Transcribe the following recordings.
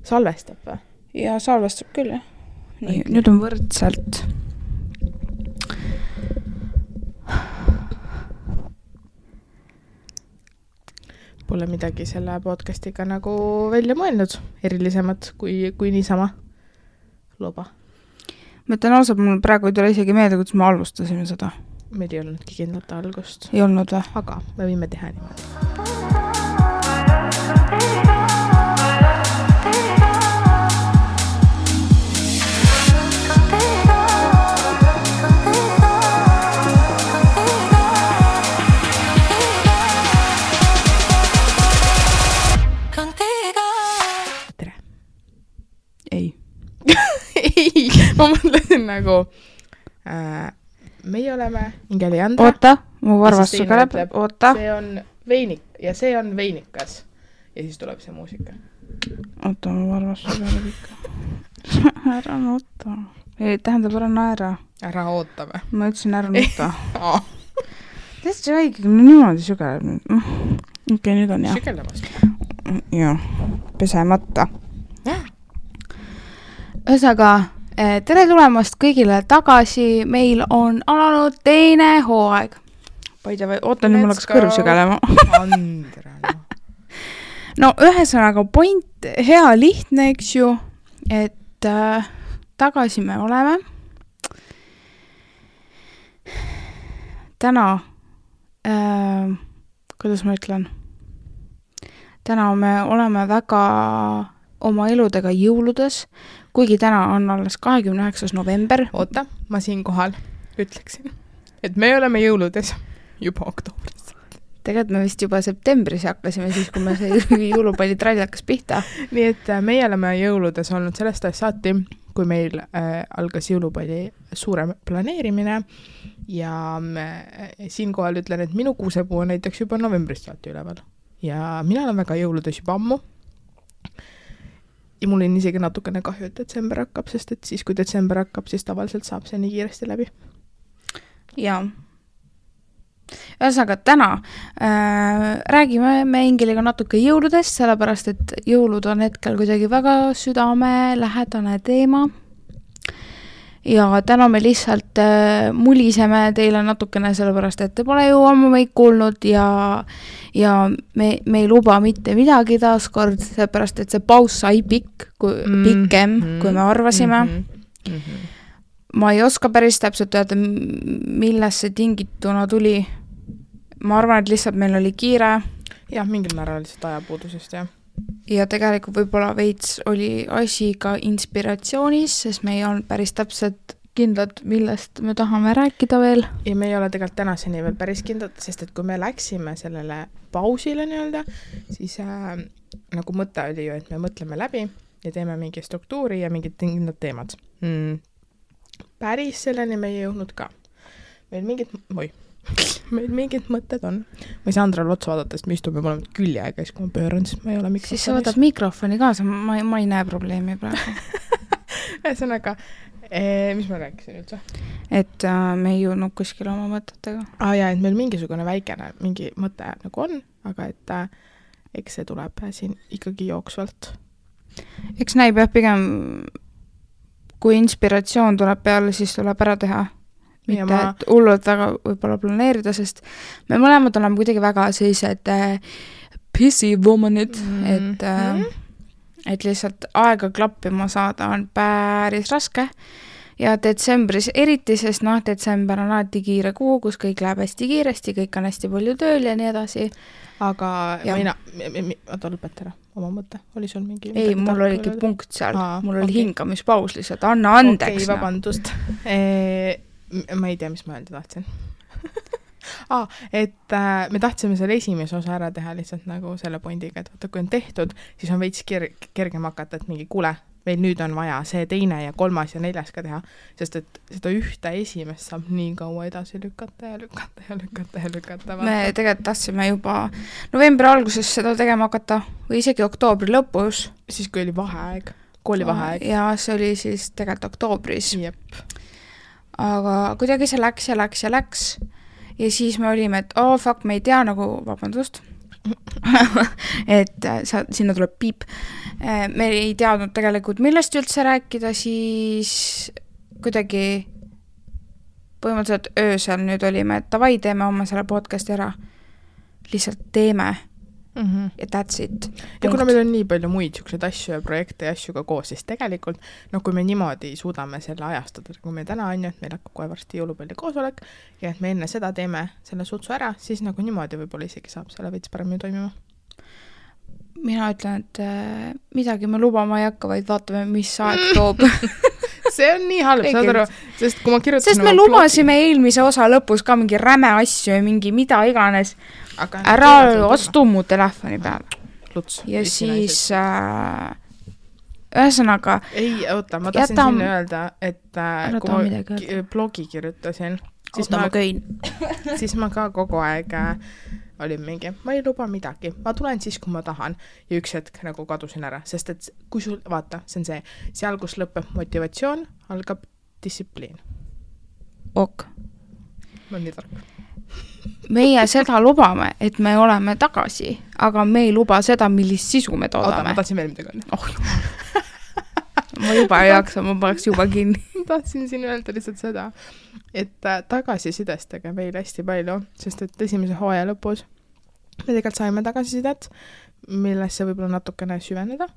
Salvestab või? Ja salvestab küll, jah. Nii, nüüd on võrdselt. Pole midagi selle podcastiga nagu välja mõelnud, erilisemat kui niisama loba. Ma ütlen ausalt, mul praegu ei tule isegi meelde, kuidas me alustasime seda. Meil ei olnudki kindlat algust. Ei olnud või? Aga me võime teha niimoodi. Ma mõtlesin nagu meie oleme Ingeliandra. Oota, mu varvas sugeleb. Oota. See on veinik ja see on veinikas. Ja siis tuleb see muusika. Oota, mu varvas sugeleb ikka. Ära nuta. Ei, tähendab, ära naera. Ära ootame. Ma ütlesin ära nuta. Tähendab, see õige, niimoodi sugeleb nüüd. Okei, nüüd on jah. Sügelemast. Jah, pesemata. Ühesõnaga, tere tulemast kõigile tagasi, meil on alanud teine hooaeg. Oota, nüüd mul hakkas kõrv sügelema. Andra. No ühesõnaga, point hea lihtne, eks ju, et tagasi me oleme. Täna, kuidas ma ütlen, täna me oleme väga oma eludega jõuludes, kuigi täna on alles 29. november. Oota, ma siin kohal ütleksin, et me oleme jõuludes juba oktoobris. Tegelikult me vist juba septembris hakkasime siis, kui me see jõulupallitrall hakkas pihta. Nii et meie oleme jõuludes olnud sellest ajast saati, kui meil algas jõulupalli suurem planeerimine ja siinkohal ütlen, et minu kuusepuu on näiteks juba novembrist saati üleval. Ja mina olen väga jõuludes juba ammu. Ja mul on isegi natukene kahju, et detsember hakkab, sest et siis, kui detsember hakkab, siis tavaliselt saab see nii kiiresti läbi. Jaa. Ühesõnaga, täna räägime me Ingeliga natuke jõuludest, sellepärast, et jõulud on hetkel kuidagi väga südamelähedane teema. Ja täna me lihtsalt muliseme teile natukene sellepärast, et te pole ju ammu meid kuulnud ja me ei luba mitte midagi taaskord, sellepärast, et see paus sai pikem, kui me arvasime. Ma ei oska päris täpselt öelda, milles see tingituna tuli. Ma arvan, et lihtsalt meil oli kiire. Jah, mingil määral lihtsalt ajapuudusest, jah. Ja tegelikult võib-olla veits oli asi ka inspiratsioonis, sest me ei olnud päris täpselt kindlad, millest me tahame rääkida veel. Ja me ei ole tegelikult tänaseni veel päris kindlad, sest et kui me läksime sellele pausile nii-öelda, siis nagu mõte oli ju, et me mõtleme läbi ja teeme mingi struktuuri ja mingid kindlad teemad. Päris selleni me ei jõudnud ka. Meil mingid mõtted on. Ma ei saa Andrale otsa vaadata, sest me istume mõlemad küljeega, kui ma pööran, siis ma ei ole mikrofonis. Siis sa võtad mikrofoni kaasa, ma ei näe probleemi praegu. Ühesõnaga, mis ma rääkisin üldse? Et me ei jõudnud kuskil oma mõtetega. Ja, et meil mingisugune väikene mingi mõte nagu on, aga et eks see tuleb siin ikkagi jooksvalt. Eks näib jah pigem, kui inspiratsioon tuleb peale, siis tuleb ära teha. Mitte, et hullult väga võib-olla planeerida, sest me mõlemad oleme kuidagi väga sellised pissy womanid, et lihtsalt aega klappima saada on päris raske ja detsembris eriti, sest detsember on alati kiire kuu, kus kõik läheb hästi kiiresti, kõik on hästi palju tööl ja nii edasi. Aga oota, lõpeta ära oma mõte, oli sul mingi... Ei, mul oligi punkt seal, mul oli hingamispaus lihtsalt, anna andeks. Okei, vabandust. Ma ei tea, mis ma öelda tahtsin. Et me tahtsime selle esimese osa ära teha lihtsalt nagu selle pointiga, et vaata, kui on tehtud, siis on veits kergem hakata, et mingi kuule, meil nüüd on vaja see teine ja kolmas ja neljas ka teha, sest et seda ühte esimest saab nii kaua edasi lükata. Me tegelikult tahtsime juba novembri alguses seda tegema hakata või isegi oktoobri lõpus. Siis kui oli vaheaeg, koolivaheaeg. Ja see oli siis tegelikult oktoobris. Jep. Aga kuidagi see läks ja siis me olime, et fuck, me ei tea nagu, vabandust, et sinna tuleb piip. Me ei teadnud tegelikult, millest üldse rääkida, siis kuidagi põhimõtteliselt öösel nüüd olime, et davai, teeme oma selle podcasti ära. Lihtsalt teeme. Ja that's it. Ja kuna meil on nii palju muid siukseid asju ja projekte ja asju ka koos, siis tegelikult, kui me niimoodi suudame selle ajastada, kui me täna on ju, et meil hakkab kohe varsti jõulupalli koosolek ja et me enne seda teeme selle sutsu ära, siis niimoodi võib-olla isegi saab selle veits paremini toimima. Mina ütlen, et midagi me lubama ei hakka, vaid vaatame, mis aeg toob. See on nii halb, saad aru, sest kui ma kirjutasin... Sest me lubasime eelmise osa lõpus ka mingi räme asju ja mingi mida iganes. Ära astu mu telefoni peale. Luts. Ja siis ühesõnaga... Ei, oota, ma tahtsin sinna öelda, et kui ma blogi kirjutasin, siis ma ka kogu aeg olin mingi, ma ei luba midagi, ma tulen siis, kui ma tahan ja üks hetk nagu kadusin ära, sest et kui sul, vaata, see on see, seal, kus lõpeb motivatsioon, algab distsipliin. Ok. Ma on nii tark. Meie seda lubame, et me oleme tagasi, aga me ei luba seda, millist sisu me toodame. Oota, ma tahtsin veel midagi öelda. Ma juba ei jaksa, ma paneks juba kinni. Tahtsin siin öelda lihtsalt seda, et tagasisidestage meil hästi palju, sest et esimese hooaja lõpus me tegelikult saime tagasisidet, millesse võib-olla natukene süveneda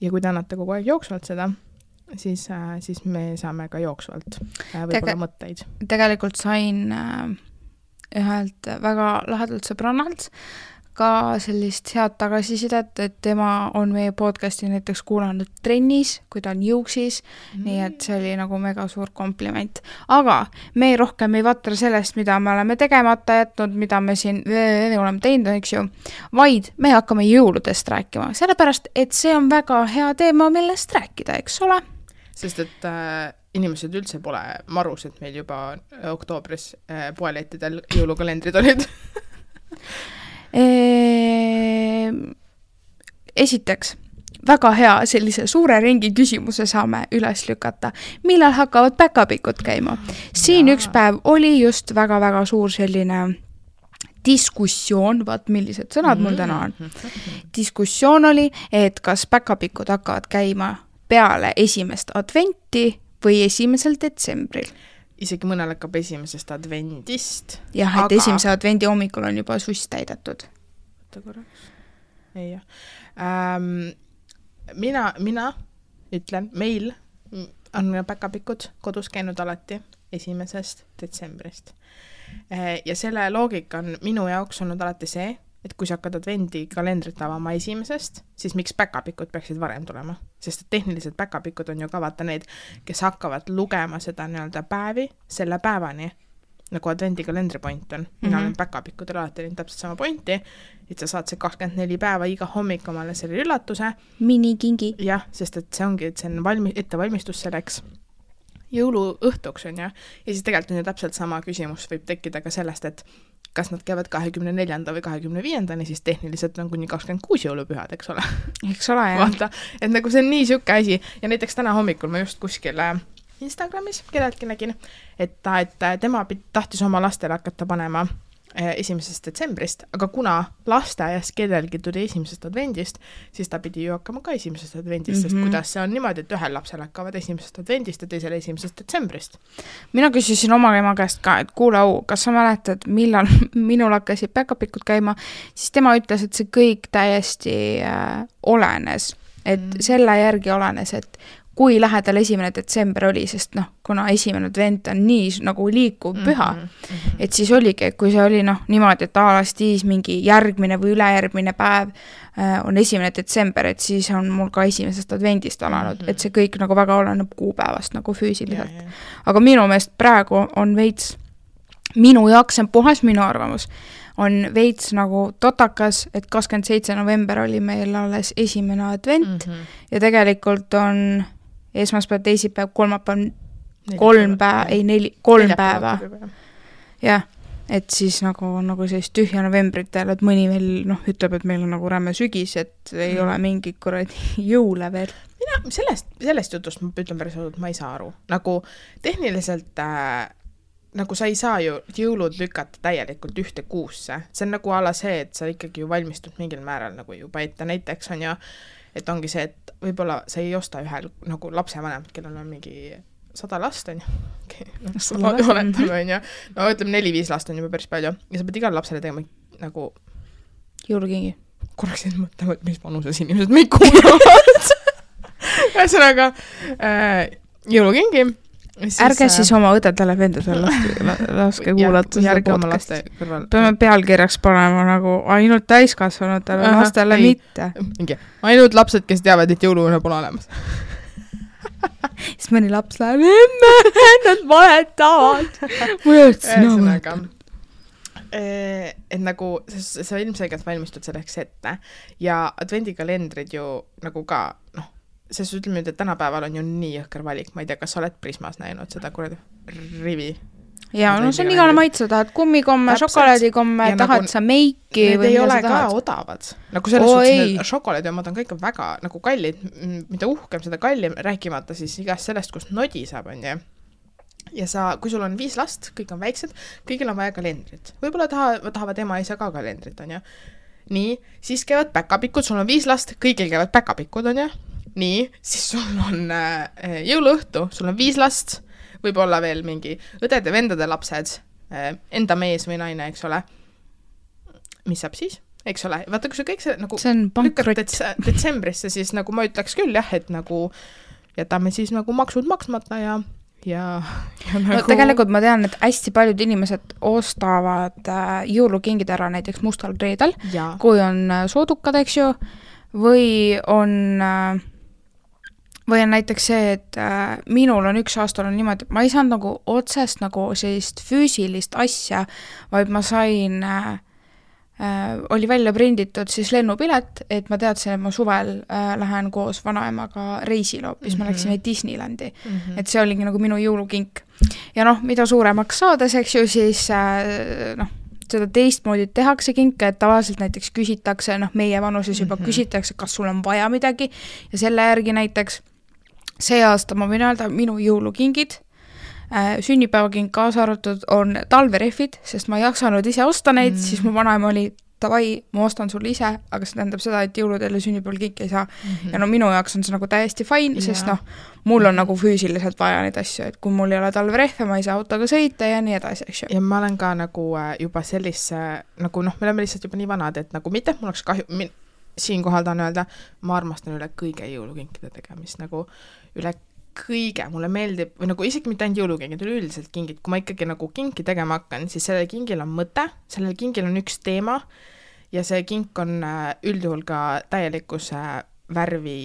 ja kui te annate kogu aeg jooksvalt seda, siis me saame ka jooksvalt võib-olla mõtteid. Tegelikult sain ühelt väga lahedalt sõbrannalt ka sellist head tagasisidet, et tema on meie podcasti näiteks kuulanud trennis, kui ta on jõuksis, nii et see oli nagu mega suur kompliment. Aga me rohkem ei vatra sellest, mida me oleme tegemata jätnud, mida me siin oleme teinud, eks ju, vaid me hakkame jõuludest rääkima, sellepärast, et see on väga hea teema, millest rääkida, eks ole? Sest et inimesed üldse pole marus, et meil juba oktoobris poelettidel jõulukalendrid olid. Esiteks, väga hea sellise suure ringi küsimuse saame üles lükata. Millal hakkavad päkapikud käima? Siin üks päev oli just väga-väga suur selline diskussioon, vaat millised sõnad mul täna on. Diskussioon oli, et kas päkapikud hakkavad käima peale 1. adventi või 1. detsembril. Isegi mõnel hakkab 1. advendist. Jah, et 1. advendi hommikul on juba suss täidetud. Võtta korraks. Ei jah. Mina ütlen, meil on päkapikud kodus käinud alati 1. detsembrist. Ja selle loogika on minu jaoks olnud alati see, et kui sa hakkad advendi kalendrit avama 1. siis miks päkapikud peaksid varem tulema? Sest tehniliselt päkapikud on ju ka vaata need, kes hakkavad lugema seda nii-öelda päevi selle päevani, nagu advendi kalendri point on. Mina olen päkapikudel alati täpselt sama pointi, et sa saad see 24 päeva iga hommik omale selle üllatuse. Minikingi. Jah, sest et see ongi, et see on ettevalmistus selleks jõuluõhtuks on ja siis tegelikult on ju täpselt sama küsimus võib tekkida ka sellest, et kas nad käivad 24. või 25. siis tehniliselt on kuni 26 jõulupühad, eks ole? Eks ole, jah. Vaata, et nagu see on nii sükke asi ja näiteks täna hommikul ma just kuskil Instagramis kelleltki nägin, et tema tahtis oma lastele hakata panema 1. detsembrist, aga kuna lasteaias kellelgi tuli 1. advendist, siis ta pidi ju hakkama ka 1. advendist, sest kuidas see on niimoodi, et ühel lapsel hakkavad 1. advendist ja teisele 1. detsembrist. Mina küsisin oma ema käest ka, et kuule au, kas sa mäletad, millal minul hakkasid päkapikud käima, siis tema ütles, et see kõik täiesti olenes, et selle järgi olenes, et kui lähedal 1. detsember oli, sest kuna 1. advent on nii nagu liikuv püha, et siis oligi, kui see oli niimoodi, et aalastiis mingi järgmine või ülejärgmine päev on 1. detsember, et siis on mul ka 1. advendist alanud, et see kõik nagu väga oleneb kuupäevast nagu füüsiliselt. Aga minu meelest praegu on veits, minu jaoks on puhas minu arvamus, on veits nagu totakas, et 27. november oli meil alles 1. advent ja tegelikult on esmaspäev, teisipäev, kolmapäev, 3 päeva. Jah, et siis nagu sellist tühja novembritel, et mõni veel ütleb, et meil on nagu rämme sügis, et ei ole mingi kuradi jõule veel. Mina sellest jutust ma ütlen päris ausalt, ma ei saa aru. Nagu tehniliselt nagu sa ei saa ju jõulud lükata täielikult ühte kuusse, see on nagu ala see, et sa ikkagi ju valmistud mingil määral nagu juba ette, näiteks on ju, et ongi see, et võib-olla sa ei osta ühel nagu lapsevanemat, kellel on mingi 100 last on ju, oletame on ju, no ütleme 4-5 last on juba päris palju ja sa pead igale lapsele tegema nagu jõulukingi. Korraks siin mõtlema, et mis vanuses inimesed meid kuulavad. Ühesõnaga, jõulukingi. Ärge siis oma õdedele vendadele laske kuulata seda podcasti. Peame pealkirjaks panema nagu ainult täiskasvanutele, lastele mitte. Ainult lapsed, kes teavad, et jõuluune pole olemas. Siis mõni laps läheb, nad valetavad. Ühesõnaga, et nagu sa ilmselgelt valmistud selleks ette ja advendikalendrid ju nagu ka, noh, sest ütleme nüüd, et tänapäeval on ju nii jõhker valik, ma ei tea, kas sa oled Prismas näinud seda kuradi rivi? Jaa, no see on igale maitse, tahad kummikomme, šokolaadikomme, tahad sa meiki need ei ole ka odavad. Nagu selles suhtes šokolaadiomad on ka ikka väga nagu kallid, mida uhkem seda kallim, rääkimata siis igast sellest, kust nodi saab, on ju. Ja sa, kui sul on 5 last, kõik on väiksed, kõigil on vaja kalendrit. Võib-olla tahavad ema isa ka kalendrit, on ju. Nii, siis käivad päkapikud, sul on 5 last, kõigil käivad päkapikud, on ju. Nii, siis sul on jõuluõhtu, sul on 5 last, võib-olla veel mingi õdede, vendade lapsed, enda mees või naine, eks ole. Mis saab siis? Eks ole, vaata, kui see kõik see nagu lükkad detsembrisse, siis nagu ma ütleks küll jah, et nagu jätame siis nagu maksud maksmata ja nagu... No, tegelikult ma tean, et hästi paljud inimesed ostavad jõulukingid ära näiteks mustal reedel, kui on soodukad, eks ju, või on näiteks see, et minul on üks aastal on niimoodi, et ma ei saanud nagu otsest nagu sellist füüsilist asja, vaid ma sain, oli välja prinditud siis lennupilet, et ma teadsin, et ma suvel lähen koos vanaemaga reisile hoopis, me läksime Disneylandi. Et see oligi nagu minu jõulukink. Ja noh, mida suuremaks saades, eks ju, siis noh, seda teistmoodi tehakse kinke, et tavaliselt näiteks küsitakse, noh, meie vanuses juba küsitakse, kas sul on vaja midagi ja selle järgi näiteks see aasta ma võin öelda, minu jõulukingid, sünnipäevakink kaasa arvatud on talverehvid, sest ma ei jaksanud ise osta neid, siis mu vanaema oli, davai, ma ostan sulle ise, aga see tähendab seda, et jõuludel ja sünnipäeval kinki ei saa. Ja no minu jaoks on see nagu täiesti fine, sest noh, mul on nagu füüsiliselt vaja neid asju, et kui mul ei ole talverehve, ma ei saa autoga sõita ja nii edasi, eks ju. Ja ma olen ka nagu juba sellise, nagu noh, me oleme lihtsalt juba nii vanad, et nagu mitte, mul oleks kahju, siinkohal tahan öelda, ma armastan üle kõige jõulukinkide tegemist, nagu üle kõige, mulle meeldib, või nagu isegi mitte ainult jõulukingid, üleüldiselt kingid, kui ma ikkagi nagu kinki tegema hakkan, siis sellel kingil on mõte, sellel kingil on üks teema ja see kink on üldjuhul ka täielikus värvi,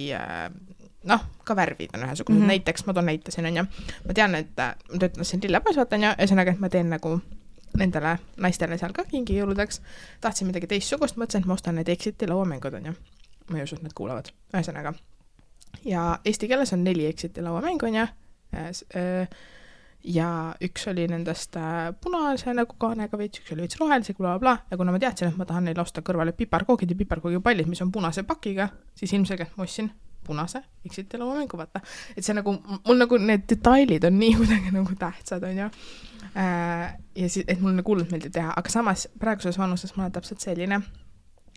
noh, ka värvid on ühesugused, näiteks ma toon näitasin, on ju, ma tean, et ma töötasin Lillepoes, vaatan ja ühesõnaga, et ma teen nagu nendele naistele seal ka kingi jõuludeks, tahtsin midagi teistsugust, mõtlesin, et ma ostan need Exiti lauamängud, on ju, ma ei usu, et nad kuulavad, ühesõnaga. Ja eesti keeles on 4 Exiti lauamängu, on ju, ja üks oli nendest punase nagu kaanega veits, üks oli veits rohelise, bla, ja kuna ma teadsin, et ma tahan neile osta kõrvale piparkoogid ja piparkoogipallid, mis on punase pakiga, siis ilmselgelt ma ostsin punase Exiti lauamängu, vaata. Et see nagu, mul nagu need detailid on nii kuidagi nagu tähtsad, on ju. Ja siis, et mul nagu hullult meeldib teha, aga samas praeguses vanuses ma olen täpselt selline,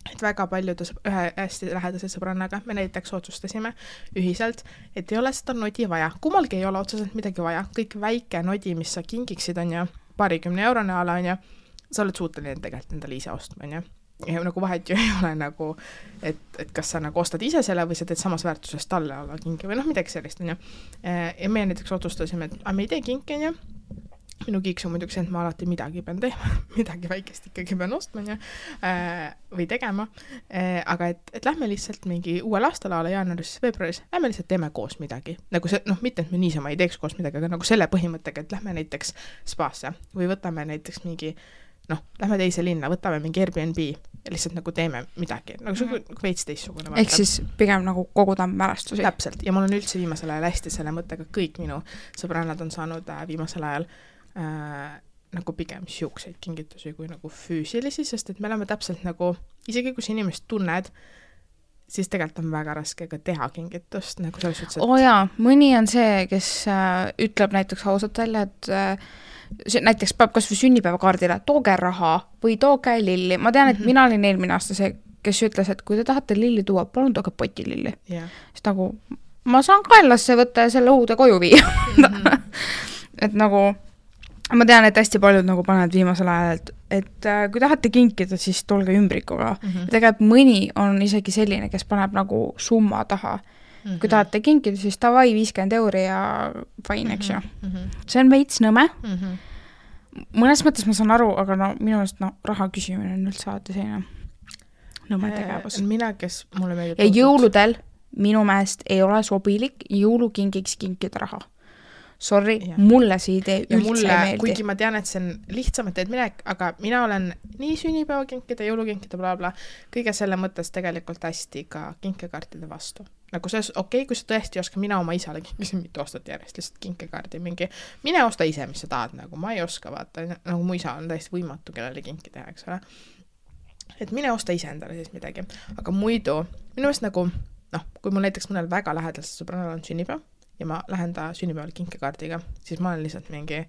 et väga paljude ühe hästi lähedase sõbrannaga me näiteks otsustasime ühiselt, et ei ole seda nodi vaja. Kummalgi ei ole otseselt midagi vaja. Kõik väike nodi, mis sa kingiksid, on ju, 20 eurone ala, on ju, sa oled suuteline tegelikult endale ise ostma, on ju. Ja nagu vahet ju ei ole nagu, et kas sa nagu ostad ise selle või sa teed samas väärtuses talle ala kingi või noh, midagi sellist, on ju. Ja me näiteks otsustasime, et me ei tee kinki, on ju. Minu kiiks on muidugi see, et ma alati midagi pean teema, midagi väikest ikkagi pean ostma ja, või tegema, aga et lähme lihtsalt mingi uuel aastal ala jaanuaris, veebruaris, lähme lihtsalt teeme koos midagi. Nagu see, noh, mitte, et me niisama ei teeks koos midagi, aga nagu selle põhimõttega, et lähme näiteks spaasse või võtame näiteks mingi, noh, lähme teise linna, võtame mingi Airbnb ja lihtsalt nagu teeme midagi, nagu see veits teissugune. Ehk siis pigem nagu koguda mälestusi. Täpselt, ja mul on üldse viimasel ajal hästi selle mõttega, kõik minu sõbrannad on saanud viimasel ajal nagu pigem siukseid kingitusi kui nagu füüsilisi, sest et me oleme täpselt nagu, isegi kui sa inimest tunned, siis tegelikult on väga raske ka teha kingitust, nagu selles suhtes, et... jaa, mõni on see, kes ütleb näiteks ausalt välja, et näiteks peab kas või sünnipäevakaardile, tooge raha või tooge lilli. Ma tean, et mina olin eelmine aasta see, kes ütles, et kui te tahate lilli tuua, palun tooge poti lilli. Siis nagu, ma saan kaelasse võtta ja selle uude koju viia. Et nagu, ma tean, et hästi paljud nagu panevad viimasel ajal, et kui tahate kinkida, siis tulge ümbrikuga. Ja tegelikult mõni on isegi selline, kes paneb nagu summa taha. Kui tahate kinkida, siis tavai 50 € ja fine, eks ju. See on veits nõme. Mõnes mõttes ma saan aru, aga no minu meelest raha küsimine on üldse alati selline nõme tegevus. Mina, kes mulle meeldib... Ja jõuludel minu meelest ei ole sobilik jõulukingiks kinkida raha. Sorry, mulle see idee üldse ei meeldi. Kuigi ma tean, et see on lihtsamalt teed minek, aga mina olen nii sünnipäevakinkida, jõulukinkida, blablabla, kõige selle mõttes tegelikult hästi ka kinkekaartide vastu. Nagu see okei, kui sa tõesti oska, mina oma isale kinkisin mitu aastat järjest, lihtsalt kinkekaardi mingi, mine osta ise, mis sa tahad, nagu ma ei oska vaata, nagu mu isa on täiesti võimatu, kellele kinki teha, eks ole. Et mine osta ise endale siis midagi. Aga muidu, minu meelest nagu, kui mul näiteks mõnel väga lähedalt sõbranal on sünnipäev, ja ma lähen ta sünnipäeval kinkekaardiga, siis ma olen lihtsalt mingi,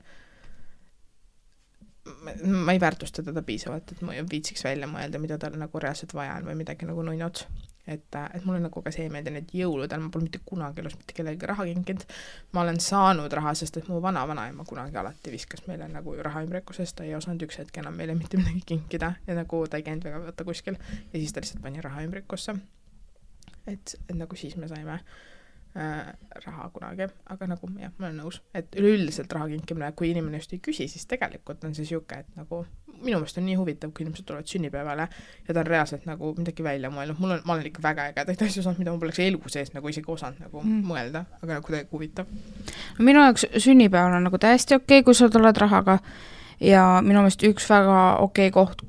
ma ei väärtusta teda piisavalt, et ma viitsiks välja mõelda, mida tal nagu reaalselt vaja on või midagi nagu nuinod. Et mulle nagu ka see meeldi, et jõuludel ma pole mitte kunagi elus mitte kellegi raha kinkinud. Ma olen saanud raha, sest et mu vanaema kunagi alati viskas meile nagu raha ümbrikusest, ta ei osanud üks hetk enam meile mitte midagi kinkida ja nagu ta ei käinud väga võtta kuskil ja siis ta lihtsalt pani raha ümbrikusse. Et nagu siis me saime raha kunagi, aga nagu jah, ma olen nõus, et üleüldiselt raha kinkimine, kui inimene just ei küsi, siis tegelikult on see siuke, et nagu minu meelest on nii huvitav, kui inimesed tulevad sünnipäevale ja ta on reaalselt nagu midagi välja mõelnud. Ma olen ikka väga ägedaid asju saanud, mida ma poleks elu sees nagu isegi osanud nagu mõelda, aga nagu täiega huvitav. Minu jaoks sünnipäeval on nagu täiesti okei, kui sa tuled rahaga ja minu meelest üks väga okei koht,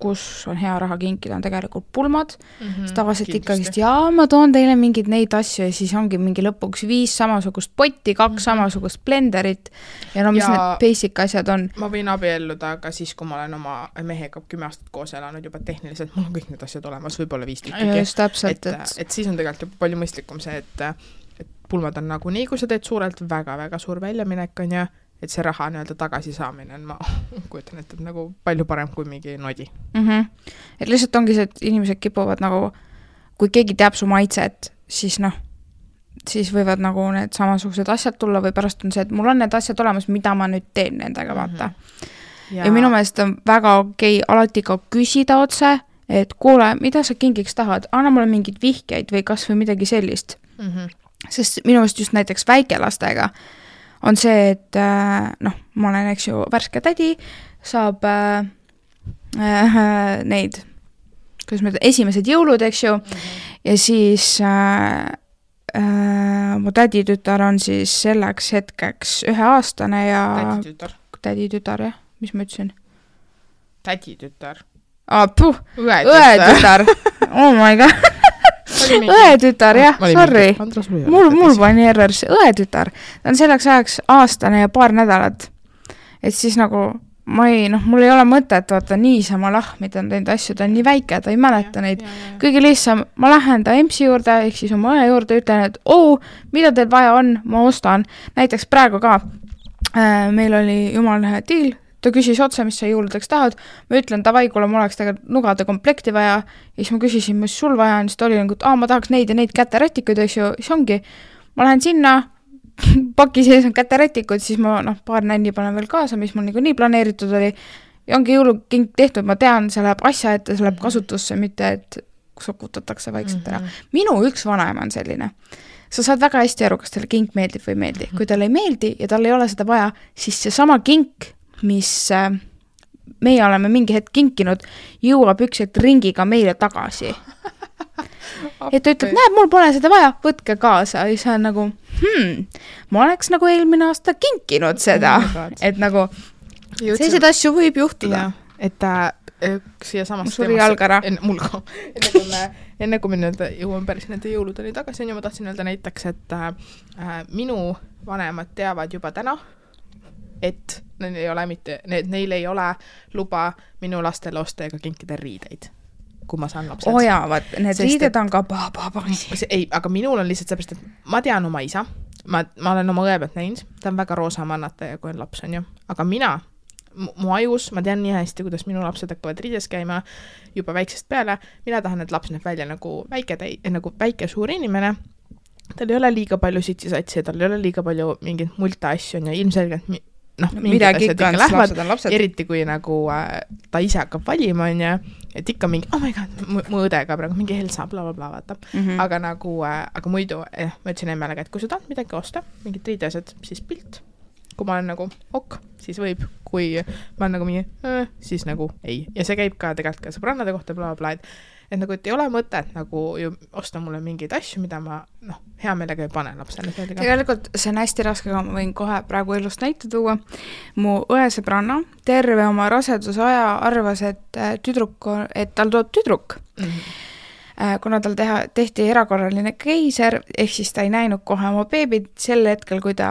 kus on hea raha kinkida, on tegelikult pulmad. Tavaliselt ikkagist, ma toon teile mingid neid asju ja siis ongi mingi lõpuks 5 samasugust potti, 2 samasugust blenderit ja mis need basic asjad on. Ma võin abielluda, aga siis, kui ma olen oma mehega 10 aastat koos elanud juba tehniliselt, mul on kõik need asjad olemas, võib-olla 5 tükki. Just täpselt. Et siis on tegelikult palju mõistlikum see, et pulmad on nagu nii, kui sa teed suurelt väga-väga suur väljaminek on ja et see raha nii-öelda tagasi saamine on, ma kujutan, et nagu palju parem kui mingi nodi. Et lihtsalt ongi see, et inimesed kipuvad nagu, kui keegi teab su maitset, siis siis võivad nagu need samasugused asjad tulla või pärast on see, et mul on need asjad olemas, mida ma nüüd teen nendega, vaata. Ja minu meelest on väga okei alati ka küsida otse, et kuule, mida sa kingiks tahad? Anna mulle mingid vihkeid või kas või midagi sellist. Sest minu meelest just näiteks väikelastega on see, et ma olen, eks ju, värske tädi, saab neid, kuidas ma ütlen, esimesed jõulud, eks ju, ja siis mu täditütar on siis selleks hetkeks 1-aastane ja täditütar, jah, mis ma ütlesin? Täditütar. Õetütar. Oh my god. Õetütar, jah, sorry. Mul pani errors. Õetütar. Ta on selleks ajaks aastane ja paar nädalat. Et siis nagu, mul ei ole mõtet, vaata, niisama lahmida on teinud asju, ta on nii väike, ta ei mäleta neid. Kõige lihtsam, ma lähen ta EMS-i juurde, ehk siis oma õe juurde, ütlen, et mida teil vaja on, ma ostan. Näiteks praegu ka, meil oli jumal diil, ta küsis otse, mis sa jõuludeks tahad. Ma ütlen, tavai, kuule, ma oleks tegelikult nugade komplekti vaja. Ja siis ma küsisin, mis sul vaja on, siis ta oli nagu, et ma tahaks neid ja neid käterätikuid, eks ju. Siis ongi, ma lähen sinna, paki sees on käterätikud, siis ma paar nänni panen veel kaasa, mis mul nii planeeritud oli. Ja ongi jõulukink tehtud, ma tean, see läheb asja ette, see läheb kasutusse, mitte et sokutatakse vaikselt ära. Minu üks vanaema on selline. Sa saad väga hästi aru, kas teile kink meeldib või meeldi. Kui talle ei meeldi ja tal ei ole seda vaja, siis see sama kink, mis meie oleme mingi hetk kinkinud, jõuab üks hetk ringiga meile tagasi. Et ta ütleb, näeb, mul pole seda vaja, võtke kaasa. Ja see on nagu, ma oleks nagu eelmine aasta kinkinud seda. Et nagu, sellised asju võib juhtuda. Et siia samast suri jalgara. Enne kui me jõuame päris nende jõuludeni tagasi, ma tahtsin öelda näiteks, et minu vanemad teavad juba täna, et neil ei ole luba minu lastele osta ega kinkida riideid, kui ma saan lapsed. Need riided on ka ei, aga minul on lihtsalt seepärast, et ma tean oma isa, ma olen oma õe pealt näinud, ta on väga roosa mannataja, kui on laps, on ju. Aga mina, mu ajus, ma tean nii hästi, kuidas minu lapsed hakkavad riides käima juba väiksest peale. Mina tahan, et laps näeb välja nagu väike suur inimene. Tal ei ole liiga palju sitsisatsi, tal ei ole liiga palju mingit multa asju, on ju ilmselgelt mingid asjad ikka lähevad, eriti kui nagu ta ise hakkab valima, on ju, et ikka mingi, oh my god, mu õdega praegu mingi Helsa, blablabla, vaata. Aga nagu, aga muidu, ma ütlesin emmele, et kui sa tahad midagi osta, mingid riidesed, siis pilt. Kui ma olen nagu ok, siis võib, kui ma olen nagu mingi, siis nagu ei. Ja see käib ka tegelikult ka sõbrannade kohta, blablabla, et nagu, et ei ole mõtet nagu ju osta mulle mingeid asju, mida ma hea meelega ei pane lapsele. Tegelikult see on hästi raske, aga ma võin kohe praegu elust näite tuua. Mu õesõbranna terve oma rasedusaja arvas, et tal tuleb tüdruk. Kuna tal tehti erakorraline keiser, ehk siis ta ei näinud kohe oma beebid, sel hetkel, kui ta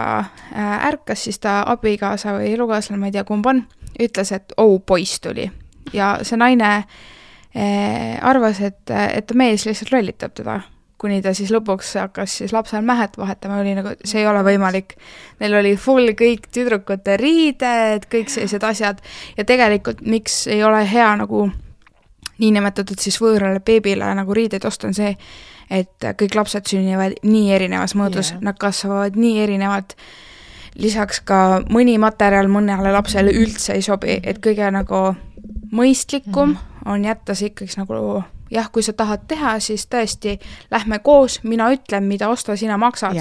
ärkas, siis ta abikaasa või elukaaslane, ma ei tea kumb on, ütles, et poiss tuli. Ja see naine arvas, et ta mees lihtsalt lollitab teda, kuni ta siis lõpuks hakkas siis lapsel mähet vahetama, oli nagu, see ei ole võimalik. Neil oli full kõik tüdrukute riided, kõik sellised asjad ja tegelikult miks ei ole hea nagu niinimetatud siis võõrale beebile nagu riideid osta on see, et kõik lapsed sünnivad nii erinevas mõõdus, nad kasvavad nii erinevalt. Lisaks ka mõni materjal mõnele lapsele üldse ei sobi, et kõige nagu mõistlikum on jätta see ikkagi nagu, jah, kui sa tahad teha, siis tõesti lähme koos, mina ütlen, mida osta, sina maksad.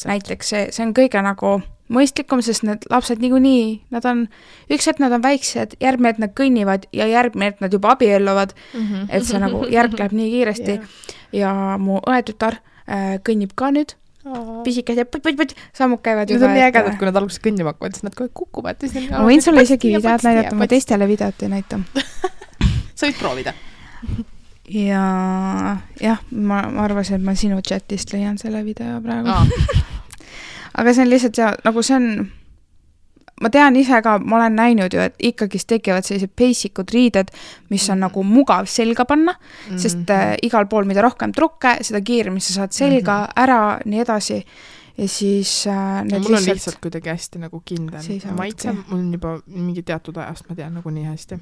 Näiteks see on kõige nagu mõistlikum, sest need lapsed niikuinii, nad on, üks hetk nad on väiksed, järgmine hetk nad kõnnivad ja järgmine hetk nad juba abielluvad, et see nagu järg läheb nii kiiresti. Ja mu õetütar kõnnib ka nüüd, pisikad ja put, sammud käivad juba. Need on nii ägedad, kui nad alguses kõnnima hakkavad, siis nad kohe kukuvad. Ma võin sulle isegi videod näidata, ma teistele videot ei näita. Sa võid proovida. Ja jah, ma arvasin, et ma sinu chatist leian selle video praegu. Aga see on lihtsalt nagu see on, ma tean ise ka, ma olen näinud ju, et ikkagi tekivad sellised basicud riided, mis on nagu mugav selga panna, sest igal pool, mida rohkem trukke, seda kiiremini sa saad selga ära, nii edasi. Ja siis mul on lihtsalt kuidagi hästi nagu kindel. Maitse, mul on juba mingi teatud ajast, ma tean nagu nii hästi.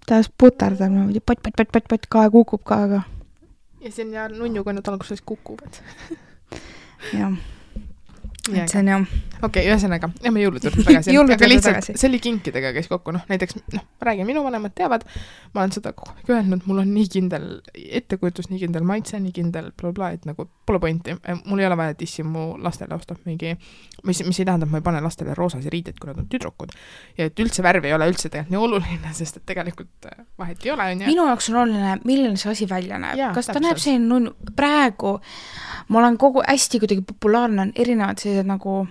Ta putardab, pot, kae kukub ka, aga. Ja see on ja nunnu, kui nad alguses kukuvad. Jah. Et see on jah. Okei, ühesõnaga, me jõuluturud tagasi. Aga lihtsalt, see oli kinkidega käis kokku. Näiteks, ma räägin, minu vanemad teavad, ma olen seda öelnud, mul on nii kindel ettekujutus, nii kindel maitse, nii kindel blablabla, et nagu pole pointi. Mul ei ole vaja, et issi mu lastele ostab mingi, mis ei tähendab, ma ei pane lastele roosasi riided, kui nad on tüdrukud. Ja et üldse värv ei ole üldse tegelikult nii oluline, sest et tegelikult vahet ei ole. Minu jaoks on oluline, milline see asi välja näeb. Kas ta näeb selline praegu, ma olen hästi kuidagi populaarne, on erinevad sellised nagu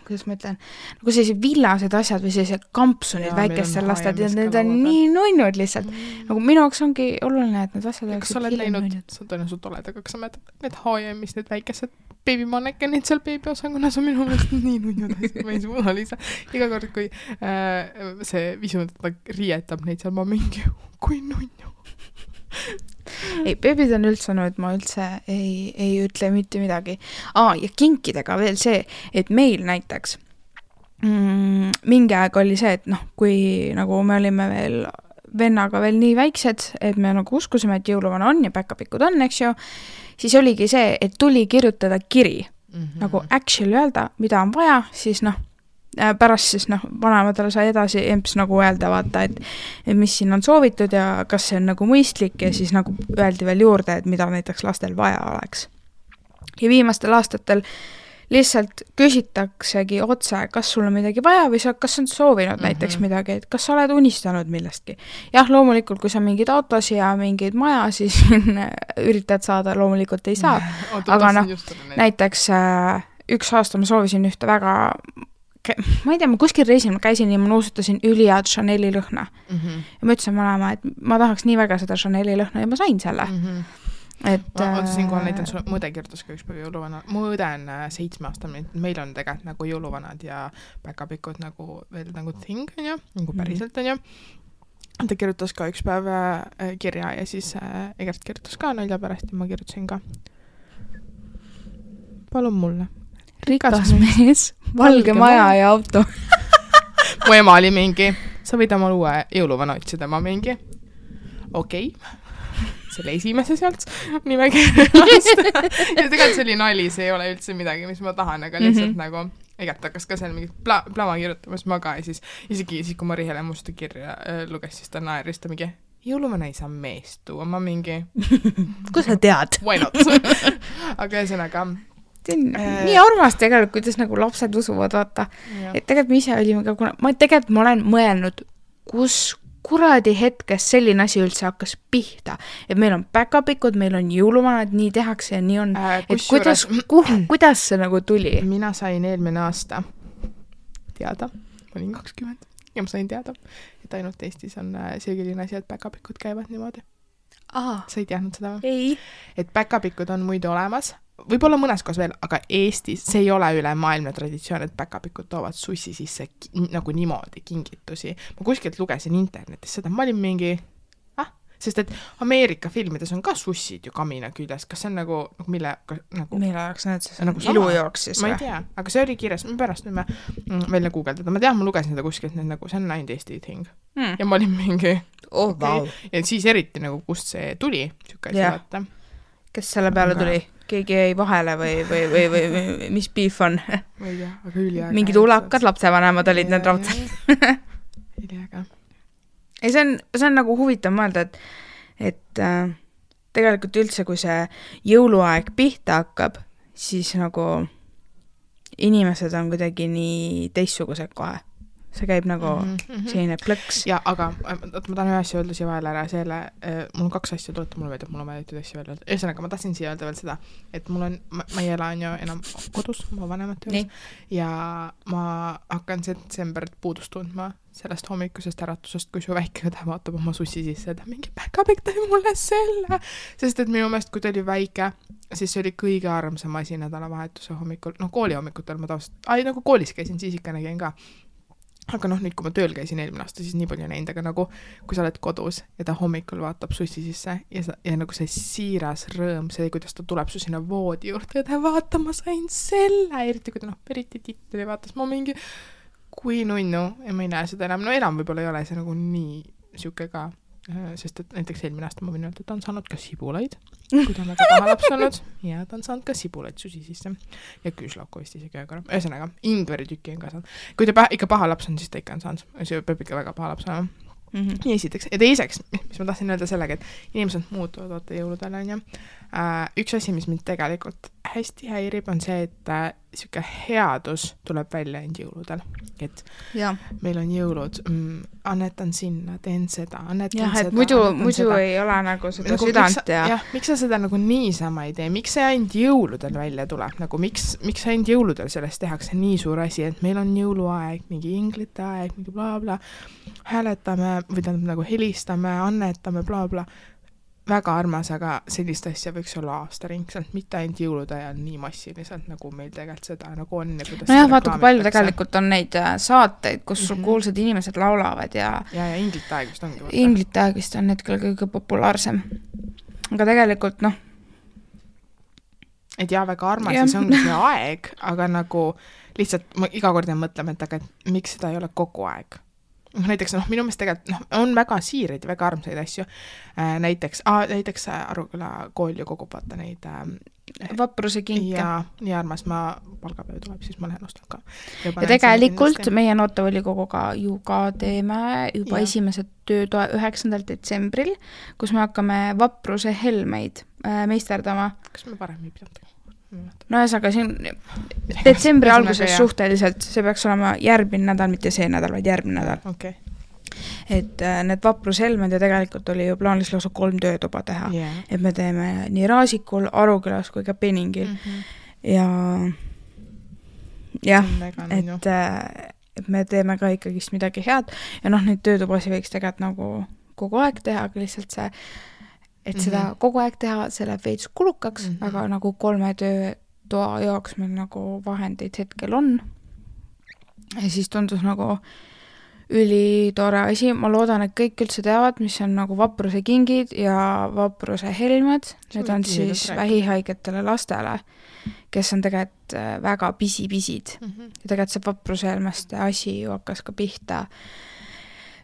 kuidas ma ütlen, nagu sellised villased asjad või sellised kampsunid väikestel lastel, need on nii nunnud lihtsalt. Nagu minu jaoks ongi oluline, et need asjad kas sa oled näinud, sa tõenäoliselt oled, aga kas sa mäletad, need H&M-is need väikesed beebimannekenid seal beebiosakonnas on minu meelest nii nunnud asjad, ma ei suuda lihtsalt. Iga kord, kui see visu rietab neid seal, ma mingi, kui nunnu. Ei, beebid on üldse nüüd, ma üldse ei ütle mitte midagi. Ja kinkidega veel see, et meil näiteks mingi aeg oli see, et kui nagu me olime veel vennaga veel nii väiksed, et me nagu uskusime, et jõuluvana on ja päkapikud on, eks ju, siis oligi see, et tuli kirjutada kiri. Nagu actually öelda, mida on vaja, siis pärast siis vanematele sai edasi emps nagu öelda vaata, et mis siin on soovitud ja kas see on nagu mõistlik ja siis nagu öeldi veel juurde, et mida näiteks lastel vaja oleks. Ja viimastel aastatel lihtsalt küsitaksegi otse, kas sul on midagi vaja või kas on soovinud näiteks midagi, et kas sa oled unistanud millestki. Jah, loomulikult, kui sa mingid autos ja mingid maja, siis üritad saada, loomulikult ei saa. Aga näiteks üks aasta ma soovisin ühte väga ma ei tea, ma kuskil reisil ma käisin ja ma nuusutasin üliad Chaneli lõhna. Ja ma ütlesin vanema, et ma tahaks nii väga seda Chaneli lõhna ja ma sain selle. Ma siinkohal näitan sulle, mu õde kirjutas ka üks päev jõuluvana. Mu õde on 7 aastane, meil on tegelikult nagu jõuluvanad ja päkapikud nagu veel nagu thing, on ju, nagu päriselt on ju. Ta kirjutas ka üks päev kirja ja siis Egert kirjutas ka nalja pärast ja ma kirjutasin ka. palun mulle. Rikas mees, valge maja ja auto. Mu ema oli mingi, sa võid oma uue jõuluvana otsida, ma mingi, okei. Selle esimese sealt nimekirjast. Ja tegelikult see oli nali, see ei ole üldse midagi, mis ma tahan, aga lihtsalt nagu igat hakkas ka seal mingi plama kirjutamas ma ka ja siis isegi kui Mari Hele musta kirja luges, siis ta naeris, ta mingi jõuluvana ei saa meest tuua, ma mingi kus sa tead? Why not? Aga ühesõnaga nii armas tegelikult, kuidas nagu lapsed usuvad, vaata. Et tegelikult me ise olime ka, ma olen mõelnud, kus kuradi hetkest selline asi üldse hakkas pihta. Et meil on päkapikud, meil on jõuluvanad, nii tehakse ja nii on. Et kuidas see nagu tuli? Mina sain eelmine aasta teada, ma olin 20 ja ma sain teada, et ainult Eestis on selline asi, et päkapikud käivad niimoodi. Sa ei teadnud seda või? Ei. Et päkapikud on muidu olemas, võib-olla mõnes kohas veel, aga Eestis see ei ole üle maailmne traditsioon, et päkapikud toovad sussi sisse nagu niimoodi kingitusi. Ma kuskilt lugesin internetis seda, ma olin mingi, sest et Ameerika filmides on ka sussid ju kamina küljes, kas see on nagu mille jaoks need siis nagu ilujooks siis või? Ma ei tea, aga see oli kirjas, ma pärast võime välja guugeldada, ma tean, ma lugesin seda kuskilt, nagu see on ainult Eesti thing. Ja ma olin mingi wow. Ja siis eriti nagu kust see tuli, vaata. Kes selle peale tuli? Keegi jäi vahele või mis beef on? Ma ei tea, aga üliäga. Mingid ulakad lapsevanemad olid need raudselt. Üliäga. Ei, see on nagu huvitav mõelda, et tegelikult üldse, kui see jõuluaeg pihta hakkab, siis nagu inimesed on kuidagi nii teistsugused kohe. See käib nagu selline plõks. Ja, aga ma tahan ühe asja öelda siia vahel ära, mul on 2 asja tuleta, mul on väidetud asja veel öelda. Ühesõnaga, ma tahtsin siia öelda veel seda, et ma ei ela on ju enam kodus, ma vanemate juures, ja ma hakkan detsembrit puudust tundma sellest hommikusest äratusest, kui su väike õde vaatab oma sussi sisse, et mingi päkapikk tõi mulle selle, sest et minu meelest, kui ta oli väike, siis see oli kõige armsam asi nädalavahetuse hommikul, kooli hommikutel ma nagu koolis käisin, siis ikka nägin ka. Aga nüüd, kui ma tööl käisin eelmine aasta, siis nii palju näinud, aga nagu kui sa oled kodus ja ta hommikul vaatab sussi sisse ja nagu see siiras rõõm, see, kuidas ta tuleb su sinna voodi juurde ja ta vaata, ma sain selle, eriti kui ta eriti titli vaatas, ma mingi kui nunnu ja ma ei näe seda enam, enam võib-olla ei ole see nagu nii siuke ka, sest et näiteks eelmine aasta ma võin öelda, et ta on saanud ka sibulaid, kui ta on väga paha laps olnud ja ta on saanud ka sibulaid susi sisse ja küüslauku vist isegi aga ühesõnaga, ingveri tükki on ka saanud. Kui ta ikka paha laps on, siis ta ikka on saanud, see peab ikka väga paha laps olema. Nii esiteks. Ja teiseks, mis ma tahtsin öelda sellega, et inimesed muutuvad vaata jõuludel on ju. Üks asi, mis mind tegelikult hästi häirib, on see, et siuke headus tuleb välja end jõuludel. Et meil on jõulud, annetan sinna, teen seda, annetan seda. Muidu ei ole nagu seda nagu südant ja... Miks sa seda nagu niisama ei tee? Miks see ainult jõuludel välja tuleb? Nagu miks ainult jõuludel sellest tehakse nii suur asi, et meil on jõuluaeg, mingi inglite aeg, mingi bla bla, hääletame või tähendab nagu helistame, annetame bla bla. Väga armas, aga sellist asja võiks olla aastaringselt, mitte ainult jõulude ajal nii massiliselt, nagu meil tegelikult seda nagu on. Vaata, kui palju tegelikult on neid saateid, kus kuulsad inimesed laulavad ja inglite aeg vist ongi. Inglite aeg vist on hetkel kõige populaarsem. Aga tegelikult, Et väga armas ja see ongi see aeg, aga nagu lihtsalt ma iga kord mõtleme, et aga miks seda ei ole kogu aeg? Näiteks, minu meelest tegelikult on väga siireid ja väga armsaid asju. Näiteks Aruküla kool ju kogub vaata neid vapruse kinke. Ja nii armas, palgapäev tuleb, siis ma lähen ostan ka. Ja tegelikult meie noortevolikoguga ju ka teeme juba esimesed töötoa 9. detsembril, kus me hakkame vapruse helmeid meisterdama. Kas me parem ei pidanud? Ühesõnaga siin detsembri alguses suhteliselt, see peaks olema järgmine nädal, mitte see nädal, vaid järgmine nädal. Okay. Et need vaprushelmed ja tegelikult oli ju plaanis lausa 3 töötuba teha. Et me teeme nii Raasikul, Arukülas kui ka Peningil. Et me teeme ka ikkagist midagi head ja neid töötubasi võiks tegelikult nagu kogu aeg teha, aga lihtsalt see et seda kogu aeg teha, see läheb veits kulukaks, aga nagu 3 töötoa jaoks meil nagu vahendeid hetkel on. Ja siis tundus nagu ülitore asi, ma loodan, et kõik üldse teavad, mis on nagu vapruse kingid ja vapruse helmed, need on siis vähihaigetele lastele, kes on tegelikult väga pisipisid. Ja tegelikult see vapruse helmeste asi ju hakkas ka pihta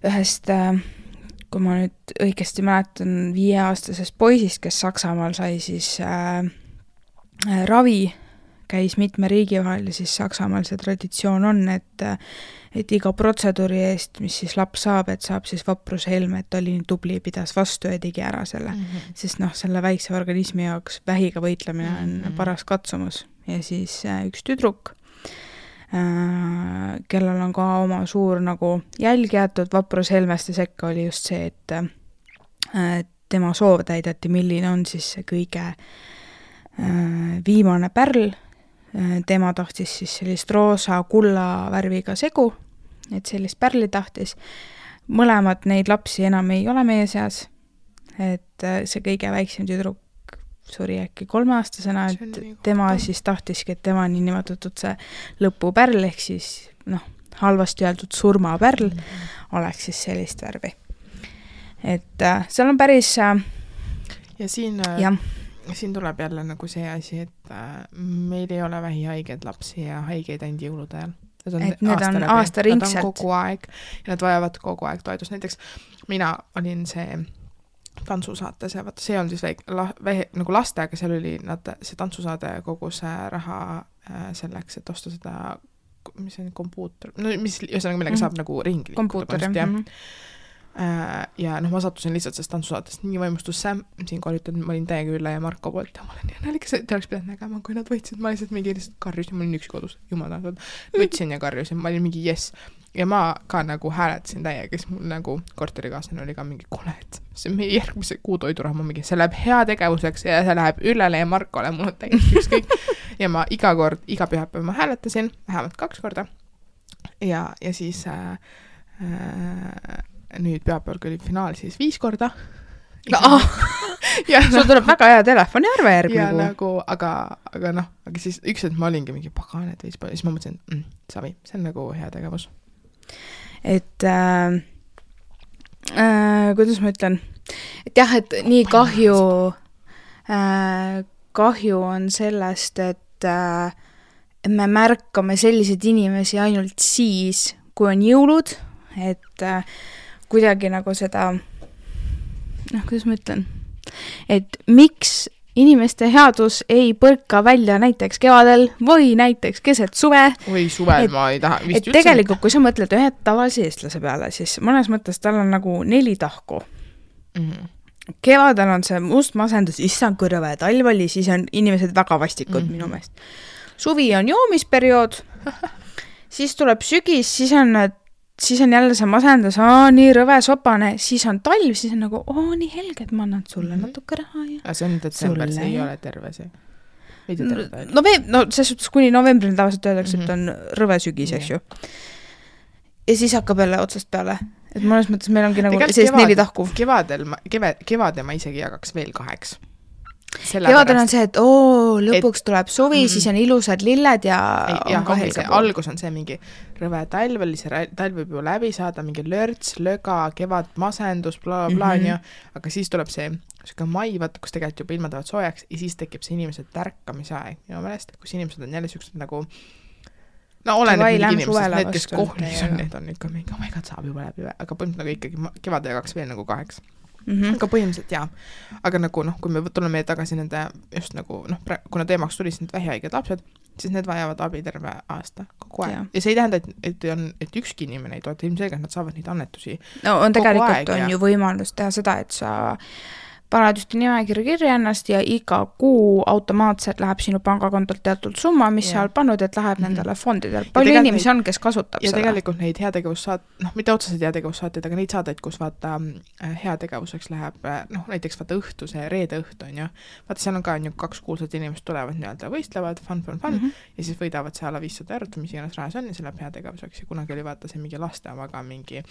ühest, kui ma nüüd õigesti mäletan, 5-aastasest poisist, kes Saksamaal sai siis ravi, käis mitme riigi vahel ja siis Saksamaal see traditsioon on, et iga protseduuri eest, mis siis laps saab, et saab siis vapruse helme, et oli nii tubli, pidas vastu ja tegi ära selle. Sest selle väikse organismi jaoks vähiga võitlemine on paras katsumus. Ja siis üks tüdruk, kellel on ka oma suur nagu jälg jäetud vapruse helmeste sekka, oli just see, et tema soov täideti, milline on siis see kõige viimane pärl. Tema tahtis siis sellist roosa kulla värviga segu, et sellist pärli tahtis. Mõlemad neid lapsi enam ei ole meie seas, et see kõige väiksem tüdruk suri äkki 3-aastasena, et tema siis tahtiski, et tema niinimetatud see lõpupärl, ehk siis halvasti öeldud surmapärl oleks siis sellist värvi. Et seal on päris ja siin tuleb jälle nagu see asi, et meil ei ole vähihaiged lapsi ja haigeid ainult jõulude ajal. Need on aastaringselt. Nad on kogu aeg ja nad vajavad kogu aeg toetust. Näiteks mina olin see tantsusaates ja see on siis nagu laste, aga seal oli see tantsusaade kogus raha selleks, et osta seda, mis on kompuuter, mis millega saab nagu ringi kompuuter, ja ma sattusin lihtsalt sellest tantsusaatest nii vaimustusse, siinkohal ütlen, ma olin täiega Ülle ja Marko poolt ja ma olen nii nalikas, et te oleks pidanud nägema, kui nad võitsid, ma lihtsalt mingi lihtsalt karjusin, ma olin üks kodus, jumal tahtnud, võtsin ja karjusin, ma olin mingi yes. Ja ma ka nagu hääletasin täiega, kes mul nagu korterikaaslane oli ka mingi kuule, et see meie järgmise kuu toiduraha mingi, see läheb hea tegevuseks ja see läheb Üllele ja Markole, mul on täiesti ükskõik. Ja ma iga pühapäev ma hääletasin, vähemalt 2 korda. Ja siis nüüd pühapäeval, kui oli finaal, siis 5 korda. Sul tuleb väga hea telefoniarve järgmine kuu. Nagu, aga siis üks, et ma olingi mingi pagan, et siis ma mõtlesin, savi, see on nagu hea tegevus. Et kuidas ma ütlen? Et jah, et nii kahju on sellest, et me märkame selliseid inimesi ainult siis, kui on jõulud, et kuidagi nagu seda, kuidas ma ütlen, et miks inimeste headus ei põrka välja näiteks kevadel või näiteks keset suve. Või suvel ma ei taha vist üldse. Tegelikult, kui sa mõtled ühe tavalise eestlase peale, siis mõnes mõttes tal on nagu 4 tahku. Kevadel on see must masendus, issand kui rõve, talv oli, siis on inimesed väga vastikud minu meelest. Suvi on joomisperiood, siis tuleb sügis, siis on jälle see masendus, nii rõve sopane, siis on talv, siis on nagu, nii helge, et ma annan sulle natuke raha. Ja see on detsember, see ei ole terve see. Selles suhtes kuni novembrini tavaliselt öeldakse, et on rõve sügis, eks ju. Ja siis hakkab jälle otsast peale. Et mõnes mõttes meil ongi nagu sellist 4 tahku. Kevade ma isegi jagaks veel 2. Kevadel on see, et lõpuks tuleb suvi, siis on ilusad lilled ja on ka helge pool. Algus on see mingi rõve talv, talv võib ju läbi saada, mingi lörts, löga, kevad, masendus, aga siis tuleb see mai, vaata, kus tegelikult juba ilmad võivad soojaks ja siis tekib see inimese tärkamise aeg minu meelest, kus inimesed on jälle siuksed nagu oleneb mingi inimesest, need, kes kohlis on, need on ikka mingi, my god, saab juba läbi, aga põhimõtteliselt nagu ikkagi kevade jagaks veel nagu 2. Aga põhimõtteliselt jaa, aga nagu kui me tuleme tagasi nende just nagu, kuna teemaks tuli need vähihaiged lapsed, siis need vajavad abi terve aasta kogu aeg. Ja see ei tähenda, et ükski inimene ei toeta, ilmselgelt nad saavad neid annetusi tegelikult on ju võimalus teha seda, et sa paned just nimekirja kirja ennast ja iga kuu automaatselt läheb sinu pangakontolt teatud summa, mis sa oled pannud, et läheb nendele fondidele. Palju inimesi on, kes kasutab seda. Ja tegelikult neid mitte otseselt heategevussaateid, aga neid saateid, kus vaata heategevuseks läheb, näiteks vaata õhtu, see reede õhtu on ju. Vaata, seal on ka 2 kuulsad inimesed tulevad nii-öelda võistlevad, fun, ja siis võidavad see alla 500 eurot, mis iganes rahas on ja see läheb heategevuseks ja kunagi oli vaata see mingi laste omaga mingi.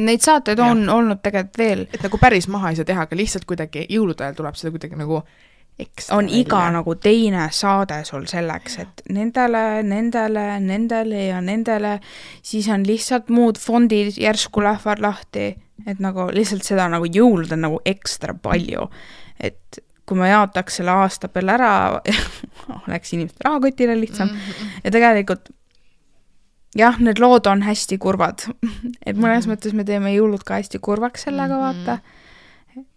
Neid saateid on olnud tegelikult veel. Et nagu päris maha ei saa teha, aga lihtsalt kuidagi jõulude ajal tuleb seda kuidagi nagu on iga nagu teine saade sul selleks, et nendele ja nendele, siis on lihtsalt muud fondid järsku lähevad lahti, et nagu lihtsalt seda nagu jõulud on nagu ekstra palju, et kui ma jaotaks selle aasta peale ära, oleks inimeste rahakotile lihtsam ja tegelikult jah, need lood on hästi kurvad, et mõnes mõttes me teeme jõulud ka hästi kurvaks sellega vaata,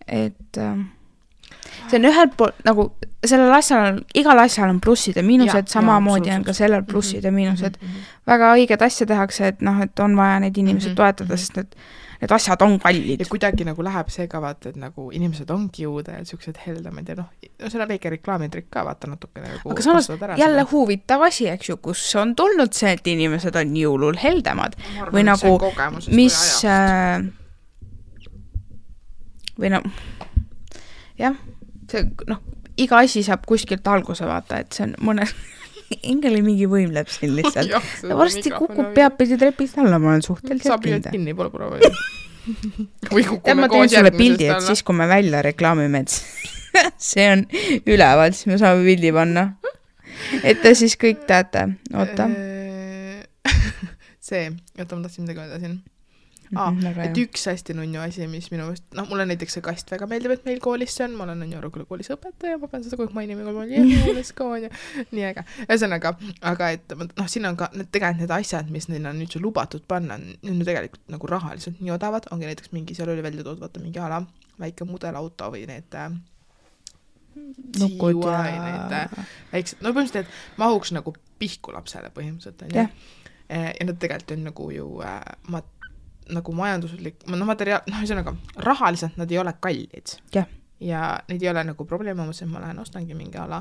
et see on ühelt poolt nagu sellel asjal, igal asjal on plussid ja miinused, samamoodi on ka sellel plussid ja miinused. Väga õiged asja tehakse, et noh, et on vaja neid inimesed toetada, sest need asjad on kallid. Ja kuidagi nagu läheb see ka vaata, et nagu inimesed ongi jõuda ja sellised heldamad ja noh, see on väike reklaamitrik ka vaata natuke nagu. Aga samas jälle huvitav asi, eks ju, kus on tulnud see, et inimesed on jõulul heldamad või nagu mis või no jah, see, noh, iga asi saab kuskilt alguse vaata, et see on mõne hingel mingi võim läheb siin lihtsalt. Ja varsti kukub peapidi trepist alla, ma olen suhteliselt kinda. Kinni pole proovi. Või kukume ma teen sulle pildi, et siis kui me välja reklaamime, et see on üleval, siis me saame pildi panna. Et te siis kõik teate. Oota. See, oota, ma tahtsin midagi öelda siin. Et üks hästi nunnu asi, mis minu mõist, noh, mulle näiteks see kast väga meeldib, et meil koolis see on, ma olen nunnu Aruküla koolis õpetaja, ma pean seda kogu mainima, kui ma olen jõulis ka on ja nii äge. Ühesõnaga, aga et noh, siin on ka tegelikult need asjad, mis neil on nüüd lubatud panna, nüüd tegelikult nagu rahaliselt nii odavad, ongi näiteks mingi, seal oli välja toodud, vaata mingi ala, väike mudelauto või need nukud ja need väiksed, no põhimõtteliselt, et mahuks nagu pihku lapsele põhimõtteliselt. Ja nad tegelikult on nagu ju nagu majanduslik, no materiaal, noh, ühesõnaga, rahaliselt nad ei ole kallid. Ja neid ei ole nagu probleem, et ma lähen ostangi mingi ala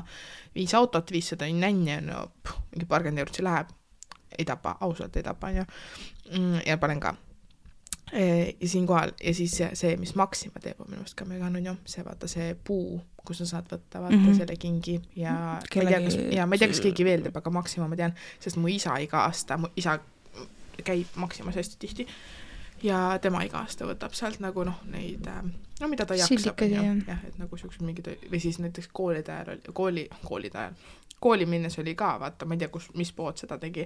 5 autot, 500 nänni, no mingi pargend eurotsi läheb, ei tapa, ausalt ei tapa, ja panen ka. Ja siinkohal, ja siis see, mis Maxima teeb, on minu mõist ka mega on ju, see vaata see puu, kus sa saad võtta vaata selle kingi ja ma ei tea, kas keegi veel teeb, aga Maxima ma tean, sest mu isa iga aasta, mu isa käib Maximas hästi tihti ja tema iga aasta võtab sealt nagu noh, neid, no mida ta jaksab, jah, et nagu siuksed mingid, või siis näiteks koolide ajal, kooli minnes oli ka, vaata, ma ei tea, mis pood seda tegi,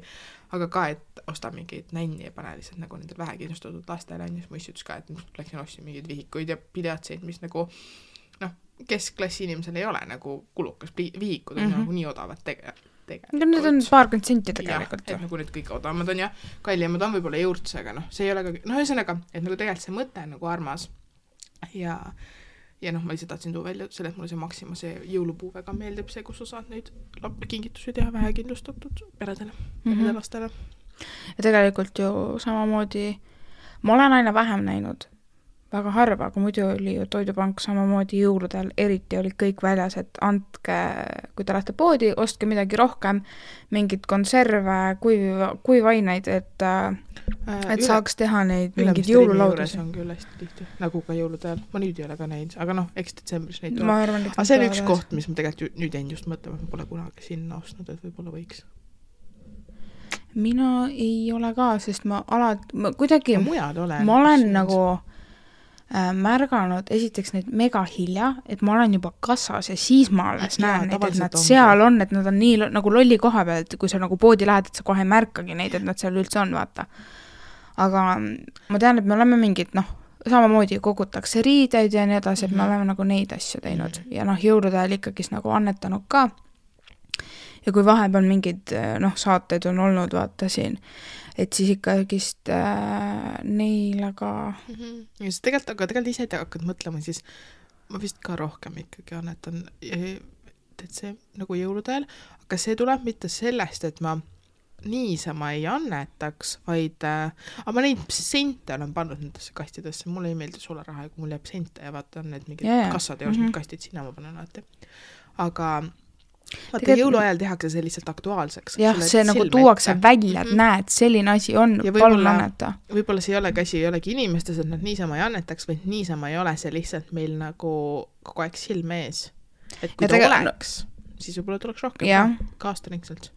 aga ka, et osta mingid nänni ja pane lihtsalt nagu nendel vähekindlustatud lastele, siis ma ütles ka, et läksin ostsin mingid vihikuid ja pileatseid, mis nagu, noh, keskklassi inimesel ei ole nagu kulukas, vihikud on nagu nii odavad tegelikult. Need on paarkümmend senti tegelikult. Et nagu need kõik odavamad on ja kallimad on võib-olla juurtsega, noh, see ei ole ka, noh, ühesõnaga, et nagu tegelikult see mõte on nagu armas ja noh, ma lihtsalt tahtsin tuua välja selle, et mulle see Maxima, see jõulupuu väga meeldib, see, kus sa saad neid kingitusi teha vähekindlustatud peredele, lastele. Ja tegelikult ju samamoodi, ma olen aina vähem näinud, väga harva, aga muidu oli ju Toidupank samamoodi jõuludel, eriti olid kõik väljas, et andke, kui te lähete poodi, ostke midagi rohkem, mingid konserve, kuivaineid, et saaks teha neid mingid jõululaudusi. On küll hästi tihti, nagu ka jõuludel. Ma nüüd ei ole ka neid, aga noh, eks detsembris neid ma arvan, aga see on üks koht, mis ma tegelikult nüüd jäin just mõtlema, et ma pole kunagi sinna ostnud, et võib-olla võiks. Mina ei ole ka, sest ma kuidagi, ma olen nagu märganud esiteks neid mega hilja, et ma olen juba kassas ja siis ma alles näen neid, et nad seal on, et nad on nii nagu lolli koha peal, et kui sa nagu poodi lähed, et sa kohe ei märkagi neid, et nad seal üldse on, vaata. Aga ma tean, et me oleme mingid, noh, samamoodi kogutakse riideid ja nii edasi, et me oleme nagu neid asju teinud ja noh, jõulude ajal ikkagi nagu annetanud ka. Ja kui vahepeal mingid, noh, saateid on olnud, vaata siin, et siis ikkagist neil, aga... Ja see tegelikult ise hakkad mõtlema, siis ma vist ka rohkem ikkagi annetan, et see nagu jõuludel, aga see tuleb mitte sellest, et ma niisama ei annetaks, vaid ma neid sente olen pannud nendesse kastidesse, mulle ei meeldi sularaha, kui mul jääb sente ja vaata on need mingid kassad ja kastid, sinna ma panen alati. Aga vaata, jõuluajal tehakse see lihtsalt aktuaalseks. Jah, see nagu tuuakse välja, et näed, selline asi on, palun anneta. Võib-olla see ei ole käsi, ei olegi inimestes, et nad niisama ei annetaks, vaid niisama ei ole see lihtsalt meil nagu kogu aeg silme ees. Et kui ta oleks, siis võib-olla tuleks rohkem ka aastaringselt.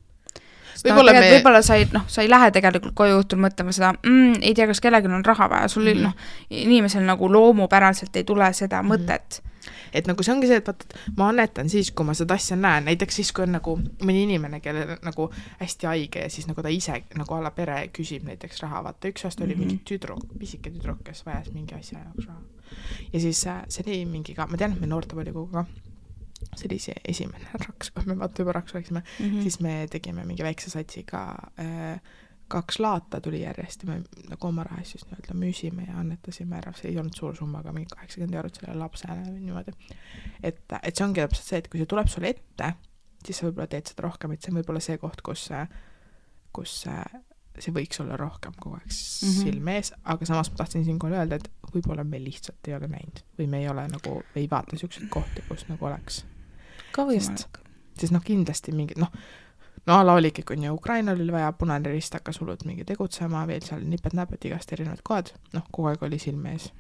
võib-olla sa ei lähe tegelikult koju õhtul mõtlema seda, ei tea, kas kellelgi on raha vaja, sul inimesel nagu loomupäraselt ei tule seda mõtet. Et nagu see ongi see, et vaata, ma annetan siis, kui ma seda asja näen, näiteks siis, kui on nagu mõni inimene, kelle nagu hästi haige ja siis nagu ta ise nagu alla pere küsib näiteks raha, vaata üks aasta oli mingi pisike tüdruk, kes vajas mingi asja jaoks raha. Ja siis see oli mingi ka, ma tean, et me noortevolikoguga, see oli see esimene raks, kui me vaata juba raks oleksime, siis me tegime mingi väikse satsiga 2 laata tuli järjest ja me nagu oma raha siis nii-öelda müüsime ja annetasime ära, see ei olnud suur summa, aga mingi 80 € sellele lapsele või niimoodi. Et see ongi täpselt see, et kui see tuleb sulle ette, siis sa võib-olla teed seda rohkem, et see on võib-olla see koht, kus see võiks olla rohkem kogu aeg silme ees, aga samas ma tahtsin siinkohal öelda, et võib-olla me lihtsalt ei ole näinud või me ei ole nagu, ei vaata niisuguseid kohti, kus nagu oleks. Ka võimalik. Sest kindlasti mingid, ala oligi, kui Ukraina oli vaja, Punane Rist hakkas hullult mingi tegutsema, veel seal nipet-näpet igast erinevad kohad, kogu aeg oli silme ees.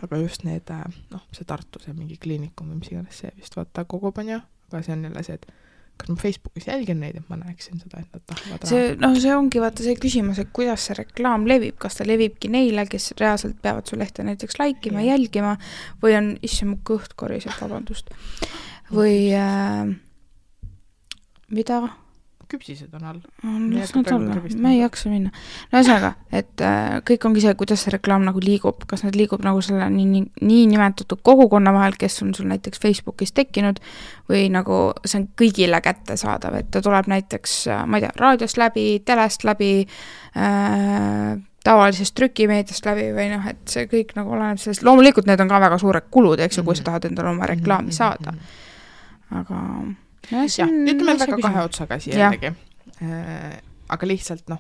Aga just need, see Tartu, see mingi kliinikum või mis iganes see vist vaata kogub on ju, aga see on jälle see, et kas ma Facebookis jälgin neid, et ma näeksin seda, et nad tahavad raha. See ongi vaata see küsimus, et kuidas see reklaam levib, kas ta levibki neile, kes reaalselt peavad su lehte näiteks laikima, jälgima või on isse mu kõht koriseb, vabandust. Või mida? Küpsised on all. Ma ei jaksa minna. Ühesõnaga, et kõik ongi see, kuidas see reklaam nagu liigub, kas nad liigub nagu selle nii nimetatud kogukonna vahel, kes on sul näiteks Facebookis tekkinud või nagu see on kõigile kätte saadav, et ta tuleb näiteks, ma ei tea, raadiost läbi, telest läbi, tavalisest trükimeediast läbi või et see kõik nagu oleneb sellest, loomulikult need on ka väga suured kulud, eks ju, kui sa tahad endale oma reklaami saada. Aga ütleme väga kahe otsaga siia jällegi. Aga lihtsalt,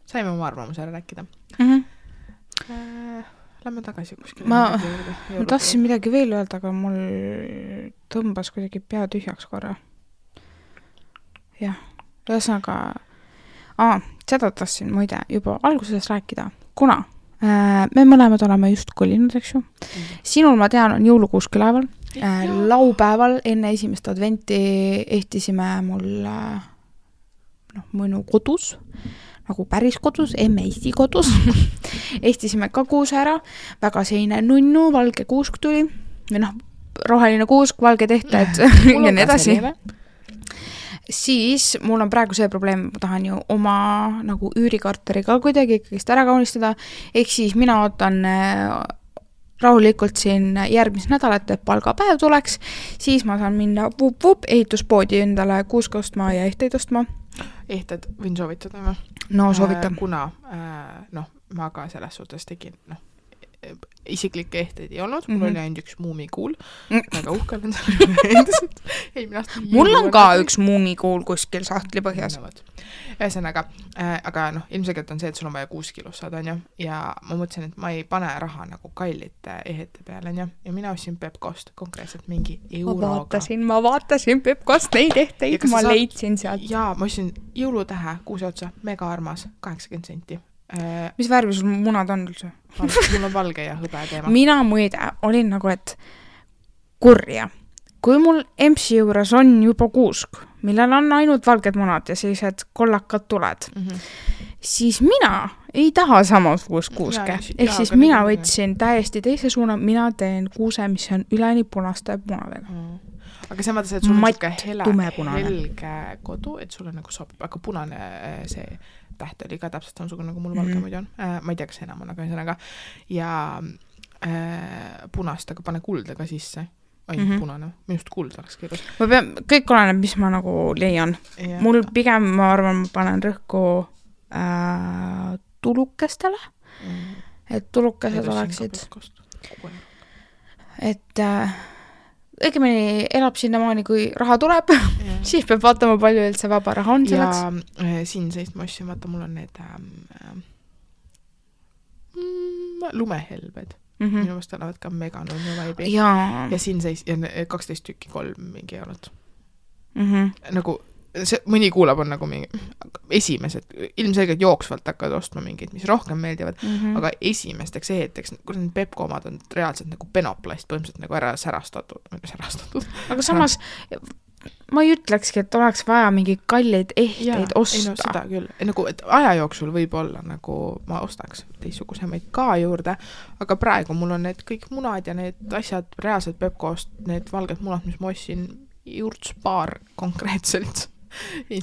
saime oma arvamuse ära rääkida. Lähme tagasi kuskile. Ma tahtsin midagi veel öelda, aga mul tõmbas kuidagi pea tühjaks korra. Jah, ühesõnaga, seda tahtsin muide juba alguses rääkida, kuna me mõlemad oleme just kolinud, eks ju. Sinul, ma tean, on jõulukuusk üleval. Laupäeval enne esimest adventi ehtisime mul mõnu kodus, nagu päris kodus, Eesti kodus. Ehtisime ka kuuse ära, väga seine nunnu, valge kuusk tuli, või roheline kuusk, valge tehted ja nii edasi. Siis mul on praegu see probleem, ma tahan ju oma nagu üürikarteri ka kuidagi kõigist ära kaunistada, ehk siis mina ootan rahulikult siin järgmist nädalat, et palgapäev tuleks, siis ma saan minna ehituspoodi endale kuuska ostma ja ehteid ostma. Ehted võin soovitada või? No soovitan. Kuna ma ka selles suhtes tegin, isiklikke ehteid ei olnud, mul oli ainult üks muumikuul, väga uhke olen endiselt. Mul on ka üks muumikuul kuskil sahtli põhjas. Ühesõnaga, aga ilmselgelt on see, et sul on vaja 6 kilos saada, on ju, ja ma mõtlesin, et ma ei pane raha nagu kallite ehete peale, on ju, ja mina ostsin Pepkost konkreetselt mingi euroga. Ma vaatasin Pepkost neid ehteid, ma leidsin sealt. Jaa, ma ostsin jõulutähe kuuse otsa, mega armas, 80 senti. Mis värvi sul munad on üldse? Mul on valge ja hõbe teema. Mina muide olin nagu, et kurja. Kui mul EMS-i juures on juba kuusk, millel on ainult valged munad ja sellised kollakad tuled, siis mina ei taha samasugust kuuske. Ehk siis mina võtsin täiesti teise suuna, mina teen kuuse, mis on üleni punaste munadega. Aga see mõttes, et sul on helge kodu, et sul on nagu sobib, aga punane see täht oli ka täpselt samasugune, nagu mul valge muidu on. Ma ei tea, kas enam on, aga ühesõnaga. Ja punast, aga pane kulda ka sisse. Punane. Minust kuld oleks keelus. Kõik oleneb, mis ma nagu leian. Ja. Mul pigem, ma arvan, ma panen rõhku tulukestele. Et tulukesed oleksid. Et õigemini elab sinnamaani, kui raha tuleb, siis peab vaatama, palju üldse vaba raha on selleks. Ja siin seist ma ostsin, vaata, mul on need lumehelbed. Minu mõist olevad ka meganunnu vaibi. Ja siin seist, ja 12 tükki 3 mingi eurot. Nagu, see, mõni kuulab on nagu mingi esimesed, ilmselgelt jooksvalt hakkavad ostma mingid, mis rohkem meeldivad, aga esimesteks eheteks, kui need Pepko omad on reaalselt nagu penoplast põhimõtteliselt nagu ära särastatud. Aga samas ma ei ütlekski, et oleks vaja mingi kalleid ehteid osta. Ei no seda küll. Nagu, et aja jooksul võib olla nagu ma ostaks teistsugusemaid ka juurde, aga praegu mul on need kõik munad ja need asjad reaalselt Pepkost, need valged munad, mis ma ostsin juurtspaar konkreetselt.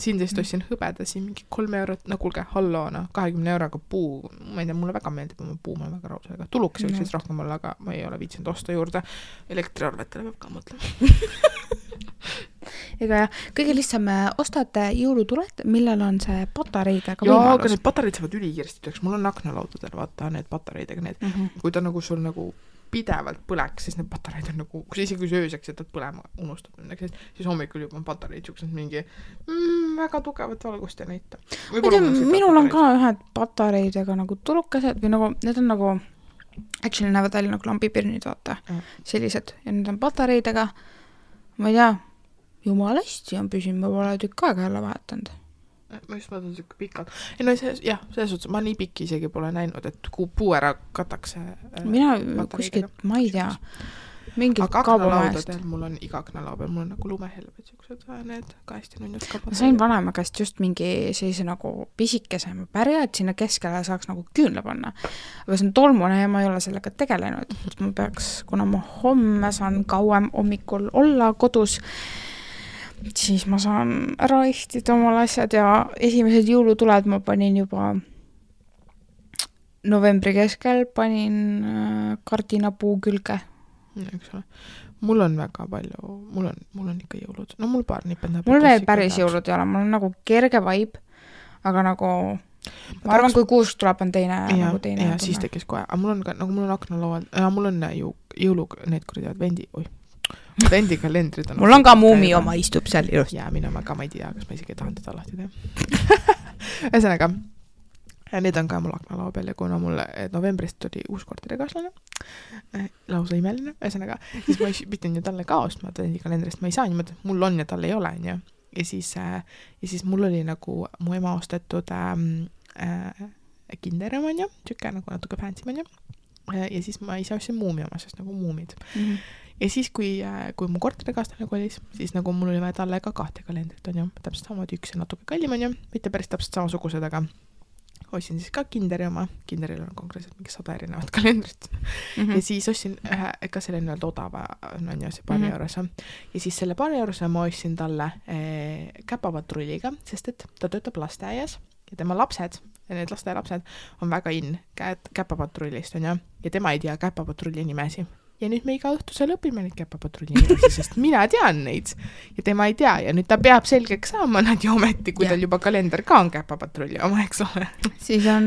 Siin teist ostsin hõbeda siin mingi 3 eurot, no kuulge, halloona, 20 euroga puu, ma ei tea, mulle väga meeldib oma puu, ma olen väga raus, aga tuluks võiks siis rohkem olla, aga ma ei ole viitsinud osta juurde. Elektriarvetele peab ka mõtlema. Ega jah, kõige lihtsam ostate jõulutuled, millel on see patareidega võimalus. Jaa, aga need patareid saavad ülikirsti, mul on aknalaudadel, vaata, need patareidega, need, kui ta nagu sul nagu pidevalt põleks, siis need patareid on nagu, kui isegi kui ööseks jätad põlema, unustad midagi, siis hommikul juba on patareid siuksed mingi väga tugevat valgust ja näita. Minul on ka ühed patareidega nagu tulukesed või nagu, need on nagu, actually näevad välja nagu lambipirnid, vaata, sellised, ja need on patareidega, ma ei tea, jumala hästi on püsinud, ma pole tükk aega jälle vahetanud. Ma just mõtlen siuke pikalt. Ei no jah, selles suhtes, ma nii pikki isegi pole näinud, et kui puu ära katakse. Mina kuskilt, ma ei tea, mingid kaubamajast. Aga mul on iga aknalao peal, mul on nagu lumehelved siuksed, need ka hästi nunnud ka. Ma sain vanema käest just mingi sellise nagu pisikese pärja, et sinna keskele saaks nagu küünle panna. Aga see on tolmune ja ma ei ole sellega tegelenud. Ma peaks, kuna ma homme saan kauem hommikul olla kodus, siis ma saan ära ehtida omal asjad ja esimesed jõulutuled ma panin juba novembri keskel, panin kardinapuu külge. Eks ole. Mul on väga palju, mul on ikka jõulud. No mul paar nipendab. Mul veel päris jõulud ei ole, mul on nagu kerge vibe, aga nagu ma arvan, kui kuusk tuleb, on teine. Ja siis tekkis kohe. Aga mul on ka, nagu mul on aknalaual, mul on jõulu, need kurjad vendikalendrid on. Mul on ka muumi oma istub seal just. Ja mina ka ma ei tea, kas ma isegi tahan teda lahti teha. Ühesõnaga, need on ka mul aknalao peal ja kuna mulle novembrist oli uus korterikaaslane, lausa imeline, ühesõnaga, siis ma pidin ju talle ka ostma vendikalendrist, ma ei saa niimoodi, mul on ja tal ei ole, ja siis mul oli nagu mu ema ostetud kinderem on ju, tükke nagu natuke fancy on ju, ja siis ma ise ostsin muumi oma, sest nagu muumid. Ja siis, kui mu korterikaaslane kolis, siis nagu mul oli vaja talle ka 2 kalendrit, on ju, täpselt samamoodi üks ja natuke kallim, on ju, mitte päris täpselt samasugused, aga ostsin siis ka kinderi oma, kinderil on konkreetselt mingi 100 erinevat kalendrit. Ja siis ostsin ka selle nii-öelda odava, on ju, see paari eurose. Ja siis selle paari eurose ma ostsin talle käpapatrulliga, sest et ta töötab lasteaias ja tema lapsed, ja need lasteaialapsed on väga käpapatrullist, on ju, ja tema ei tea käpapatrulli nimesi. Ja nüüd me iga õhtusel õpime neid käpapatrulli nimesi, sest mina tean neid ja tema ei tea ja nüüd ta peab selgeks saama nad ja ometi, kui tal juba kalender ka on käpapatrulli oma, eks ole. Siis on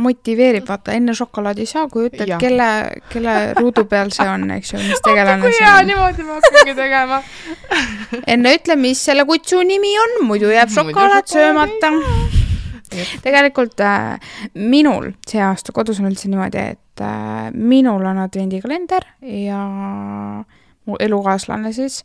motiveerib, vaata, enne šokolaadi saa, kui ütled, kelle ruudu peal see on, eks ju, mis tegelane see on. Kui hea, niimoodi ma hakkangi tegema. Enne ütle, mis selle kutsu nimi on, muidu jääb šokolaad söömata. Tegelikult minul see aasta kodus on üldse niimoodi, et minul on advendikalender ja mu elukaaslane siis,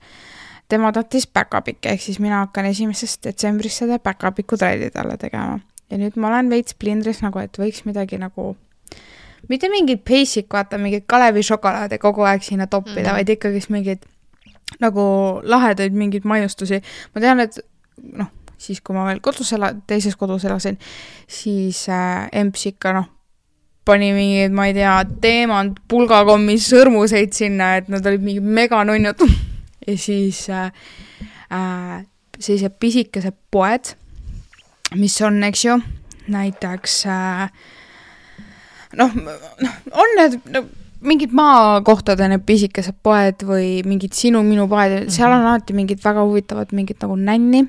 tema tahtis back-up'ikke, ehk siis mina hakkan 1. detsembrist seda back-up'iku tralli talle tegema. Ja nüüd ma olen veits plindris nagu, et võiks midagi nagu, mitte mingid basic, vaata, mingid Kalevi šokolaade kogu aeg sinna toppida, vaid ikkagi mingid nagu lahedaid mingid maiustusi. Ma tean, et siis kui ma veel teises kodus elasin, siis emps ikka pani mingid, ma ei tea, teemant pulgakommis sõrmuseid sinna, et nad olid mingid meganunnud. Ja siis sellised pisikesed poed, mis on, eks ju, näiteks on need mingid maakohtade need pisikesed poed või mingid sinu-minu poed, seal on alati mingid väga huvitavad mingid nagu nänni.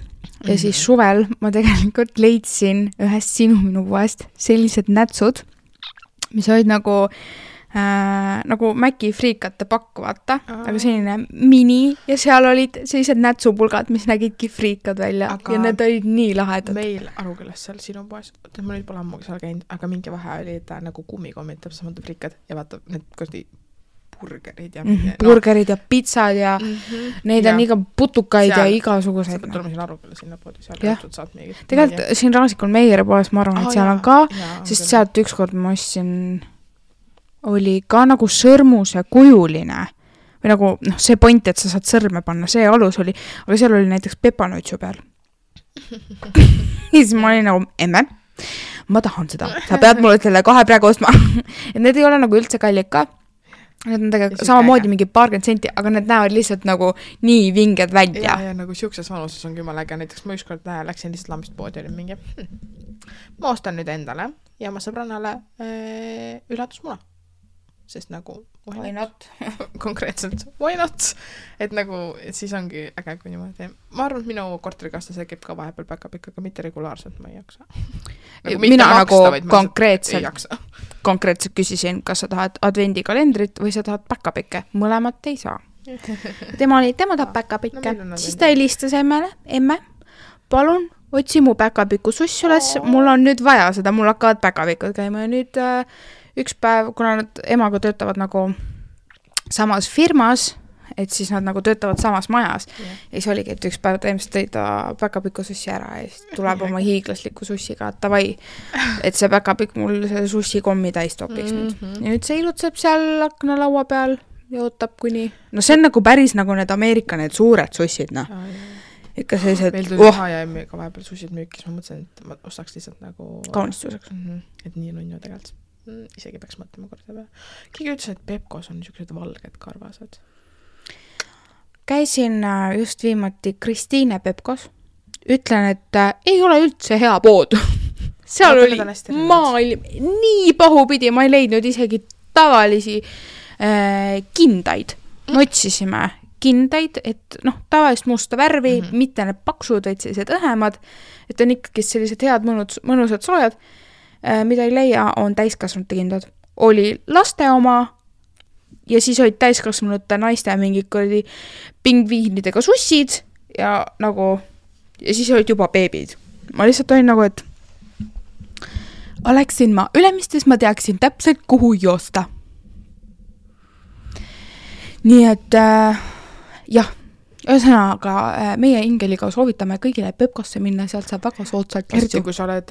Ja siis suvel ma tegelikult leidsin ühest sinu-minu poest sellised nätsud, mis olid nagu Mäki friikate pakk, vaata, aga selline mini ja seal olid sellised nätsupulgad, mis nägidki friikad välja aga ja need olid nii lahedad. Meil Arukülas seal sinu poes, ma nüüd pole ammugi seal käinud, aga mingi vahe oli ta nagu kummikommid, täpselt samad friikad ja vaata, need kosti burgerid ja burgerid ja pitsad ja neid on iga putukaid seal, ja igasuguseid. Sa pead tulema siin Aruküla sinna poodi, seal õhtud saad mingi. Tegelikult siin Raasikul Meijeri poes ma arvan, et seal on ka, sest sealt ükskord ma ostsin, oli ka nagu sõrmuse kujuline või nagu noh, see point, et sa saad sõrme panna, see alus oli, aga seal oli näiteks pepanuitsu peal. Ja siis ma olin nagu, emme, ma tahan seda, sa pead mulle selle kohe praegu ostma. Et need ei ole nagu üldse kallid ka. Need on tegelikult samamoodi mingi 20 senti, aga need näevad lihtsalt nagu nii vinged välja. Ja nagu siukses vanuses on küll äge, näiteks ma ükskord läksin lihtsalt lambist poodi, oli mingi, ma ostan nüüd endale ja ma sõbrannale üllatusmuna. Sest nagu why not? Konkreetselt, why not? Et nagu, et siis ongi äge, kui niimoodi. Ma arvan, et minu korterikastlase käib ka vahepeal päkapikk, aga mitte regulaarselt, ma ei jaksa. Nagu mina maksta, nagu konkreetselt küsisin, kas sa tahad advendikalendrit või sa tahad päkapikke. Mõlemat ei saa. Tema tahab päkapikke. Siis ta helistas emme, palun, otsi mu päkapiku suss üles, mul on nüüd vaja seda, mul hakkavad päkapikud käima ja nüüd üks päev, kuna nad emaga töötavad nagu samas firmas, et siis nad nagu töötavad samas majas. Ja siis oligi, et üks päev tõimest tõi ta päkapiku sussi ära ja siis tuleb oma hiiglasliku sussiga, et tavai, et see päkapik mul see sussi kommi täis topiks nüüd. Ja nüüd see ilutseb seal aknalaua peal ja ootab kuni... No see on nagu päris nagu need Ameerika need suured sussid, noh. Ikka sellised... Meil tuli H&M-iga vahepeal sussid müükis, ma mõtlesin, et ma ostaks lihtsalt nagu... Kaunistuseks. Et nii nunnu tegelikult. Isegi peaks mõtlema korda peale. Keegi ütles, et Pepkos on niisugused valged karvased. Käisin just viimati Kristiine Pepkos. Ütlen, et ei ole üldse hea pood. Seal oli maailm nii pahupidi, ma ei leidnud isegi tavalisi kindaid. Me otsisime kindaid, et noh, tavalist musta värvi, mitte need paksud, vaid sellised õhemad, et on ikkagi sellised head mõnusad soojad. Mida ei leia, on täiskasvanute kindad. Oli laste oma ja siis olid täiskasvanute naiste mingid pingviinidega sussid ja nagu ja siis olid juba beebid. Ma lihtsalt olin nagu, et oleksin ma Ülemistes, ma teaksin täpselt, kuhu joosta. Nii et jah, ühesõnaga meie Ingeliga soovitame kõigile Pepkosse minna, sealt saab väga soodsalt eriti, kui sa oled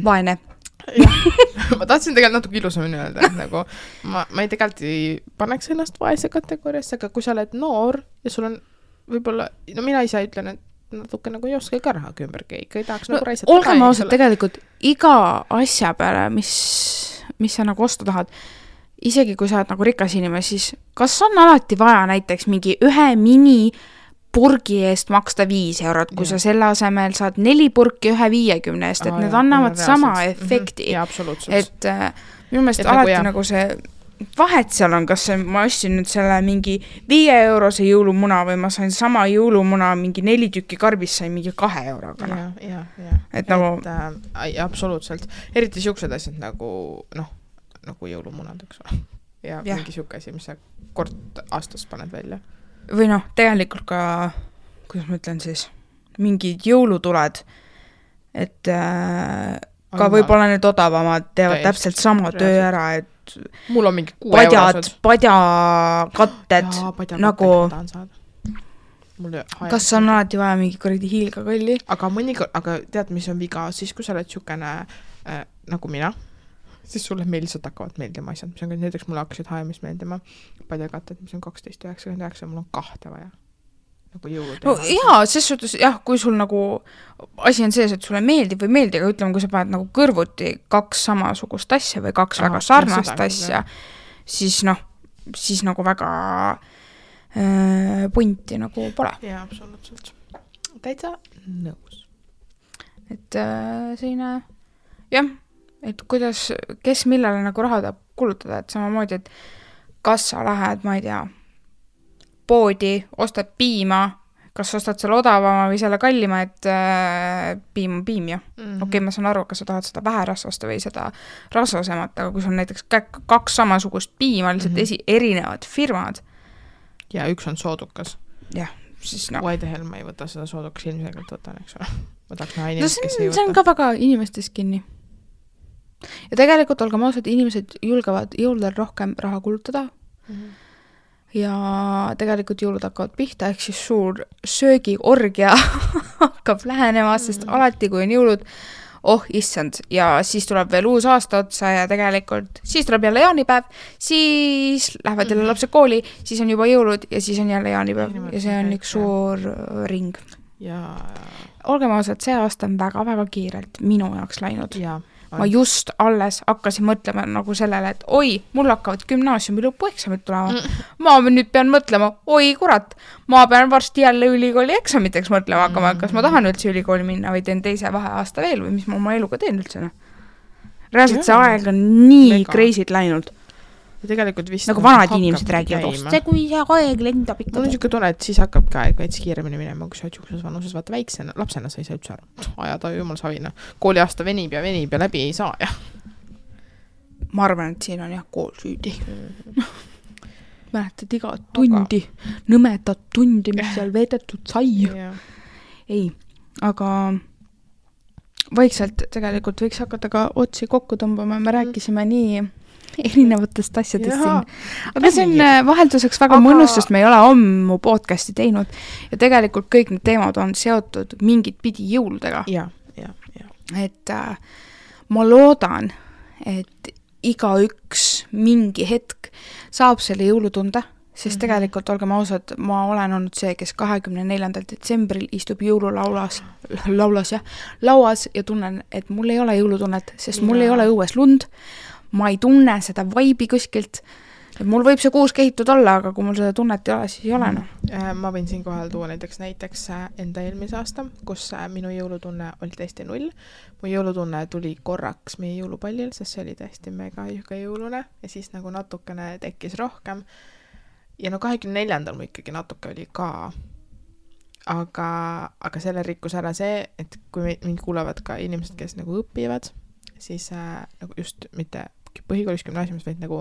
vaene. Ma tahtsin tegelikult natuke ilusamini öelda, et nagu ma ei tegelikult ei paneks ennast vaese kategooriasse, aga kui sa oled noor ja sul on võib-olla, no mina ise ütlen, et natuke nagu ei oska ka raha ümbergi, ikka ei tahaks nagu raisata. Olgem ausalt, tegelikult iga asja peale, mis sa nagu osta tahad, isegi kui sa oled nagu rikas inimene, siis kas on alati vaja näiteks mingi ühe mini purgi eest maksta 5 eurot, kui sa selle asemel saad 4 purki 1,50 eest, et need annavad sama efekti. Ja, absoluutselt. Et minu meelest alati nagu see vahet seal on, kas ma ostsin nüüd selle mingi 5 eurose jõulumuna või ma sain sama jõulumuna mingi 4 tükki karbis sain mingi 2 euroga. Ja. Et nagu... absoluutselt. Eriti siuksed asjad nagu, nagu jõulumunad, eks ole. Ja mingi siuke asi, mis sa kord aastas paned välja. Või noh, tegelikult ka, kuidas ma ütlen siis, mingid jõulutuled, et ka võib-olla need odavamad teevad täpselt sama töö ära, et mul on mingi 6 eurosed. Padjakatted, nagu kas on alati vaja mingi kuradi hiilgakolli? Aga tead, mis on viga, siis kui sa oled siukene nagu mina, siis sulle meil lihtsalt hakkavad meeldima asjad, mis on näiteks mulle hakkasid H&M-is meeldima padjakatted, mis on 12,99, mul on 2 vaja. Nagu jõuluteema. No jaa, ses suhtes, jah, kui sul nagu asi on sees, et sulle meeldib või meeldib, aga ütleme, kui sa paned nagu kõrvuti 2 samasugust asja või 2 väga sarnast asja, siis nagu väga punti nagu pole. Jaa, absoluutselt. Täitsa nõus. Et selline, jah, et kuidas, kes millele nagu raha tahab kulutada, et samamoodi, et kas sa lähed, ma ei tea, poodi, ostad piima, kas ostad selle odavama või selle kallima, et piim ja. Okei, ma saan aru, kas sa tahad seda väherasvast või seda rasvasemat, aga kui sul on näiteks 2 samasugust piima, lihtsalt erinevad firmad. Ja üks on soodukas. Jah, siis Why the hell ma ei võta seda soodukas, ilmselgelt võtan, eks ole. Ma tahaks näha inimest, kes ei võta. See on ka väga inimestest kinni. Ja tegelikult olgem ausad, inimesed julgevad jõuludel rohkem raha kulutada ja tegelikult jõulud hakkavad pihta, ehk siis suur söögiorgia hakkab lähenema, sest alati kui on jõulud, oh issand, ja siis tuleb veel uus aasta otsa ja tegelikult siis tuleb jälle jaanipäev, siis lähevad jälle lapsed kooli, siis on juba jõulud ja siis on jälle jaanipäev ja see on üks suur ring. Ja olgem ausad, see aasta on väga-väga kiirelt minu jaoks läinud. ja Ma just alles hakkasin mõtlema nagu sellele, et oi, mul hakkavad gümnaasiumi lõpueksamid tulema. Ma nüüd pean mõtlema, oi kurat, ma pean varsti jälle ülikooli eksamiteks mõtlema hakkama, kas ma tahan üldse ülikooli minna või teen teise vaheaasta veel või mis ma oma eluga teen üldse. Reaalselt see aeg on nii crazy't läinud. Ja tegelikult vist nagu vanad inimesed räägivad, see kui see aeg lendab ikka. Mul on niisugune tunne, et siis hakkab ka aeg veits kiiremini minema, kui sa oled juhkuses vanuses, vaata väiksena, lapsena sa ei saa üldse aru. Ajada jumal savina. Kooliaasta venib ja läbi ei saa. Ja. Ma arvan, et siin on jah kool süüdi. Mäletad iga tundi, nõmedat tundi, mis seal veedetud sai. Ei, aga vaikselt tegelikult võiks hakata ka otsi kokku tõmbama. Me rääkisime nii erinevatest asjadest siin. Aga see on vahelduseks väga mõnus, sest me ei ole ammu podcasti teinud ja tegelikult kõik need teemad on seotud mingit pidi jõuludega. Ja. Et ma loodan, et igaüks mingi hetk saab selle jõulutunde, sest tegelikult olgem ausad, ma olen olnud see, kes 24. detsembril istub jõululauas ja tunnen, et mul ei ole jõulutunnet, sest mul ei ole õues lund. Ma ei tunne seda vaibi kuskilt. Mul võib see kuus kehitud olla, aga kui mul seda tunnet ei ole, siis ei ole. No. Ma võin siin kohal tuua näiteks enda eelmise aasta, kus minu jõulutunne oli täiesti 0. Mu jõulutunne tuli korraks meie jõulupallil, sest see oli täiesti mega jõulune ja siis nagu natukene tekkis rohkem. Ja 24. mu ikkagi natuke oli ka. Aga selle rikkus ära see, et kui mind kuulevad ka inimesed, kes nagu õpivad, siis nagu just mitte põhikoolis gümnaasiumis, vaid nagu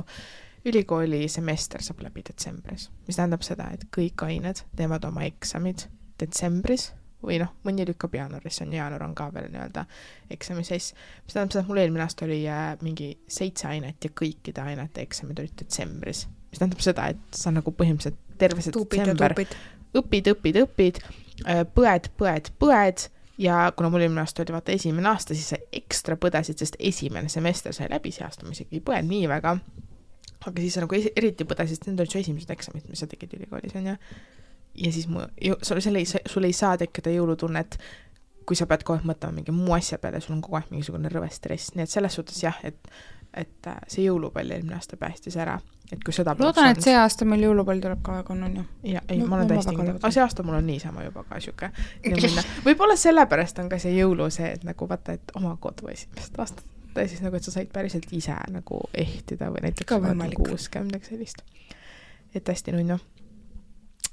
ülikooli semester saab läbi detsembris. Mis tähendab seda, et kõik ained teevad oma eksamid detsembris või mõni lükkab jaanuaris, jaanuar on ka veel nii-öelda eksami seis. Mis tähendab seda, et mul eelmine aasta oli mingi 7 ainet ja kõikide ainete eksamid olid detsembris. Mis tähendab seda, et sa nagu põhimõtteliselt terve see detsember õpid, põed ja kuna mul eelmine aasta oli vaata esimene aasta, siis sa ekstra põdesid, sest esimene semester sai läbi see aasta, ma isegi ei põed nii väga, aga siis sa nagu eriti põdesid, sest need olid su esimesed eksamid, mis sa tegid ülikoolis, on ja siis sul ei saa tekkida jõulutunnet, kui sa pead kogu aeg mõtlema mingi muu asja peale, sul on kogu aeg mingisugune rõve stress, nii et selles suhtes jah, et see jõulupall eelmine aasta päästis ära. Et kui seda loodan, et see aasta meil jõulupall tuleb ka väga on ju. Ja, ei, ma olen täiesti kindel. Aga see aasta mul on niisama juba ka siuke. Võib-olla sellepärast on ka see jõulu see, et nagu vaata, et oma kodu esimest aastat. Ta siis nagu, et sa said päriselt ise nagu ehtida või näiteks 60 sellist. Et hästi nunnu.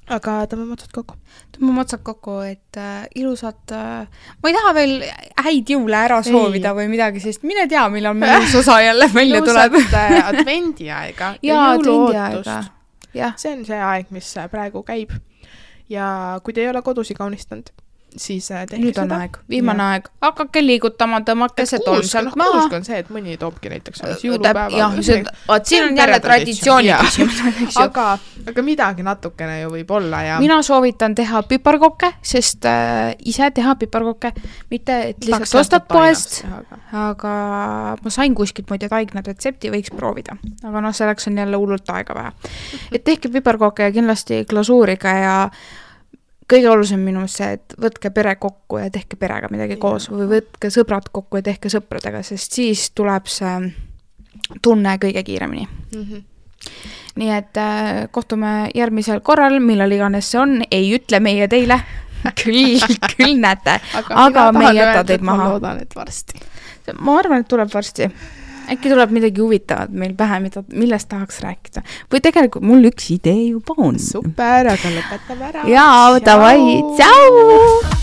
Aga tõmbame otsad kokku. Et ilusat, ma ei taha veel häid jõule ära soovida või midagi, sest mine tea, millal meil uus osa jälle välja tuleb. Ilusat advendiaega ja jõuluootust. See on see aeg, mis praegu käib. Ja kui te ei ole kodusi kaunistanud, siis tehke nüüd on seda. Aeg, viimane aeg. Hakake liigutama, tõmmake see tolm sealt maha. Kuusk on see, et mõni toobki näiteks jõulupäeva. Siin on jälle traditsiooni küsimus. Aga midagi natukene ju võib olla. Ja mina soovitan teha piparkokke, sest ise teha piparkokke, mitte et lihtsalt ostad poest, aga ma sain kuskilt muide taigna retsepti, võiks proovida. Aga selleks on jälle hullult aega vähe. Et tehke piparkokke ja kindlasti glasuuriga ja kõige olulisem minu see, et võtke pere kokku ja tehke perega midagi koos või võtke sõbrad kokku ja tehke sõpradega, sest siis tuleb see tunne kõige kiiremini. Nii et kohtume järgmisel korral, millal iganes see on, ei ütle meie teile, küll näete, aga me ei jäta teid maha. Ma loodan, et varsti. Ma arvan, et tuleb varsti. Äkki tuleb midagi huvitavat meil pähe, millest tahaks rääkida. Või tegelikult mul üks idee juba on. Super, aga lõpetame ära. Jaa, davai, tšau!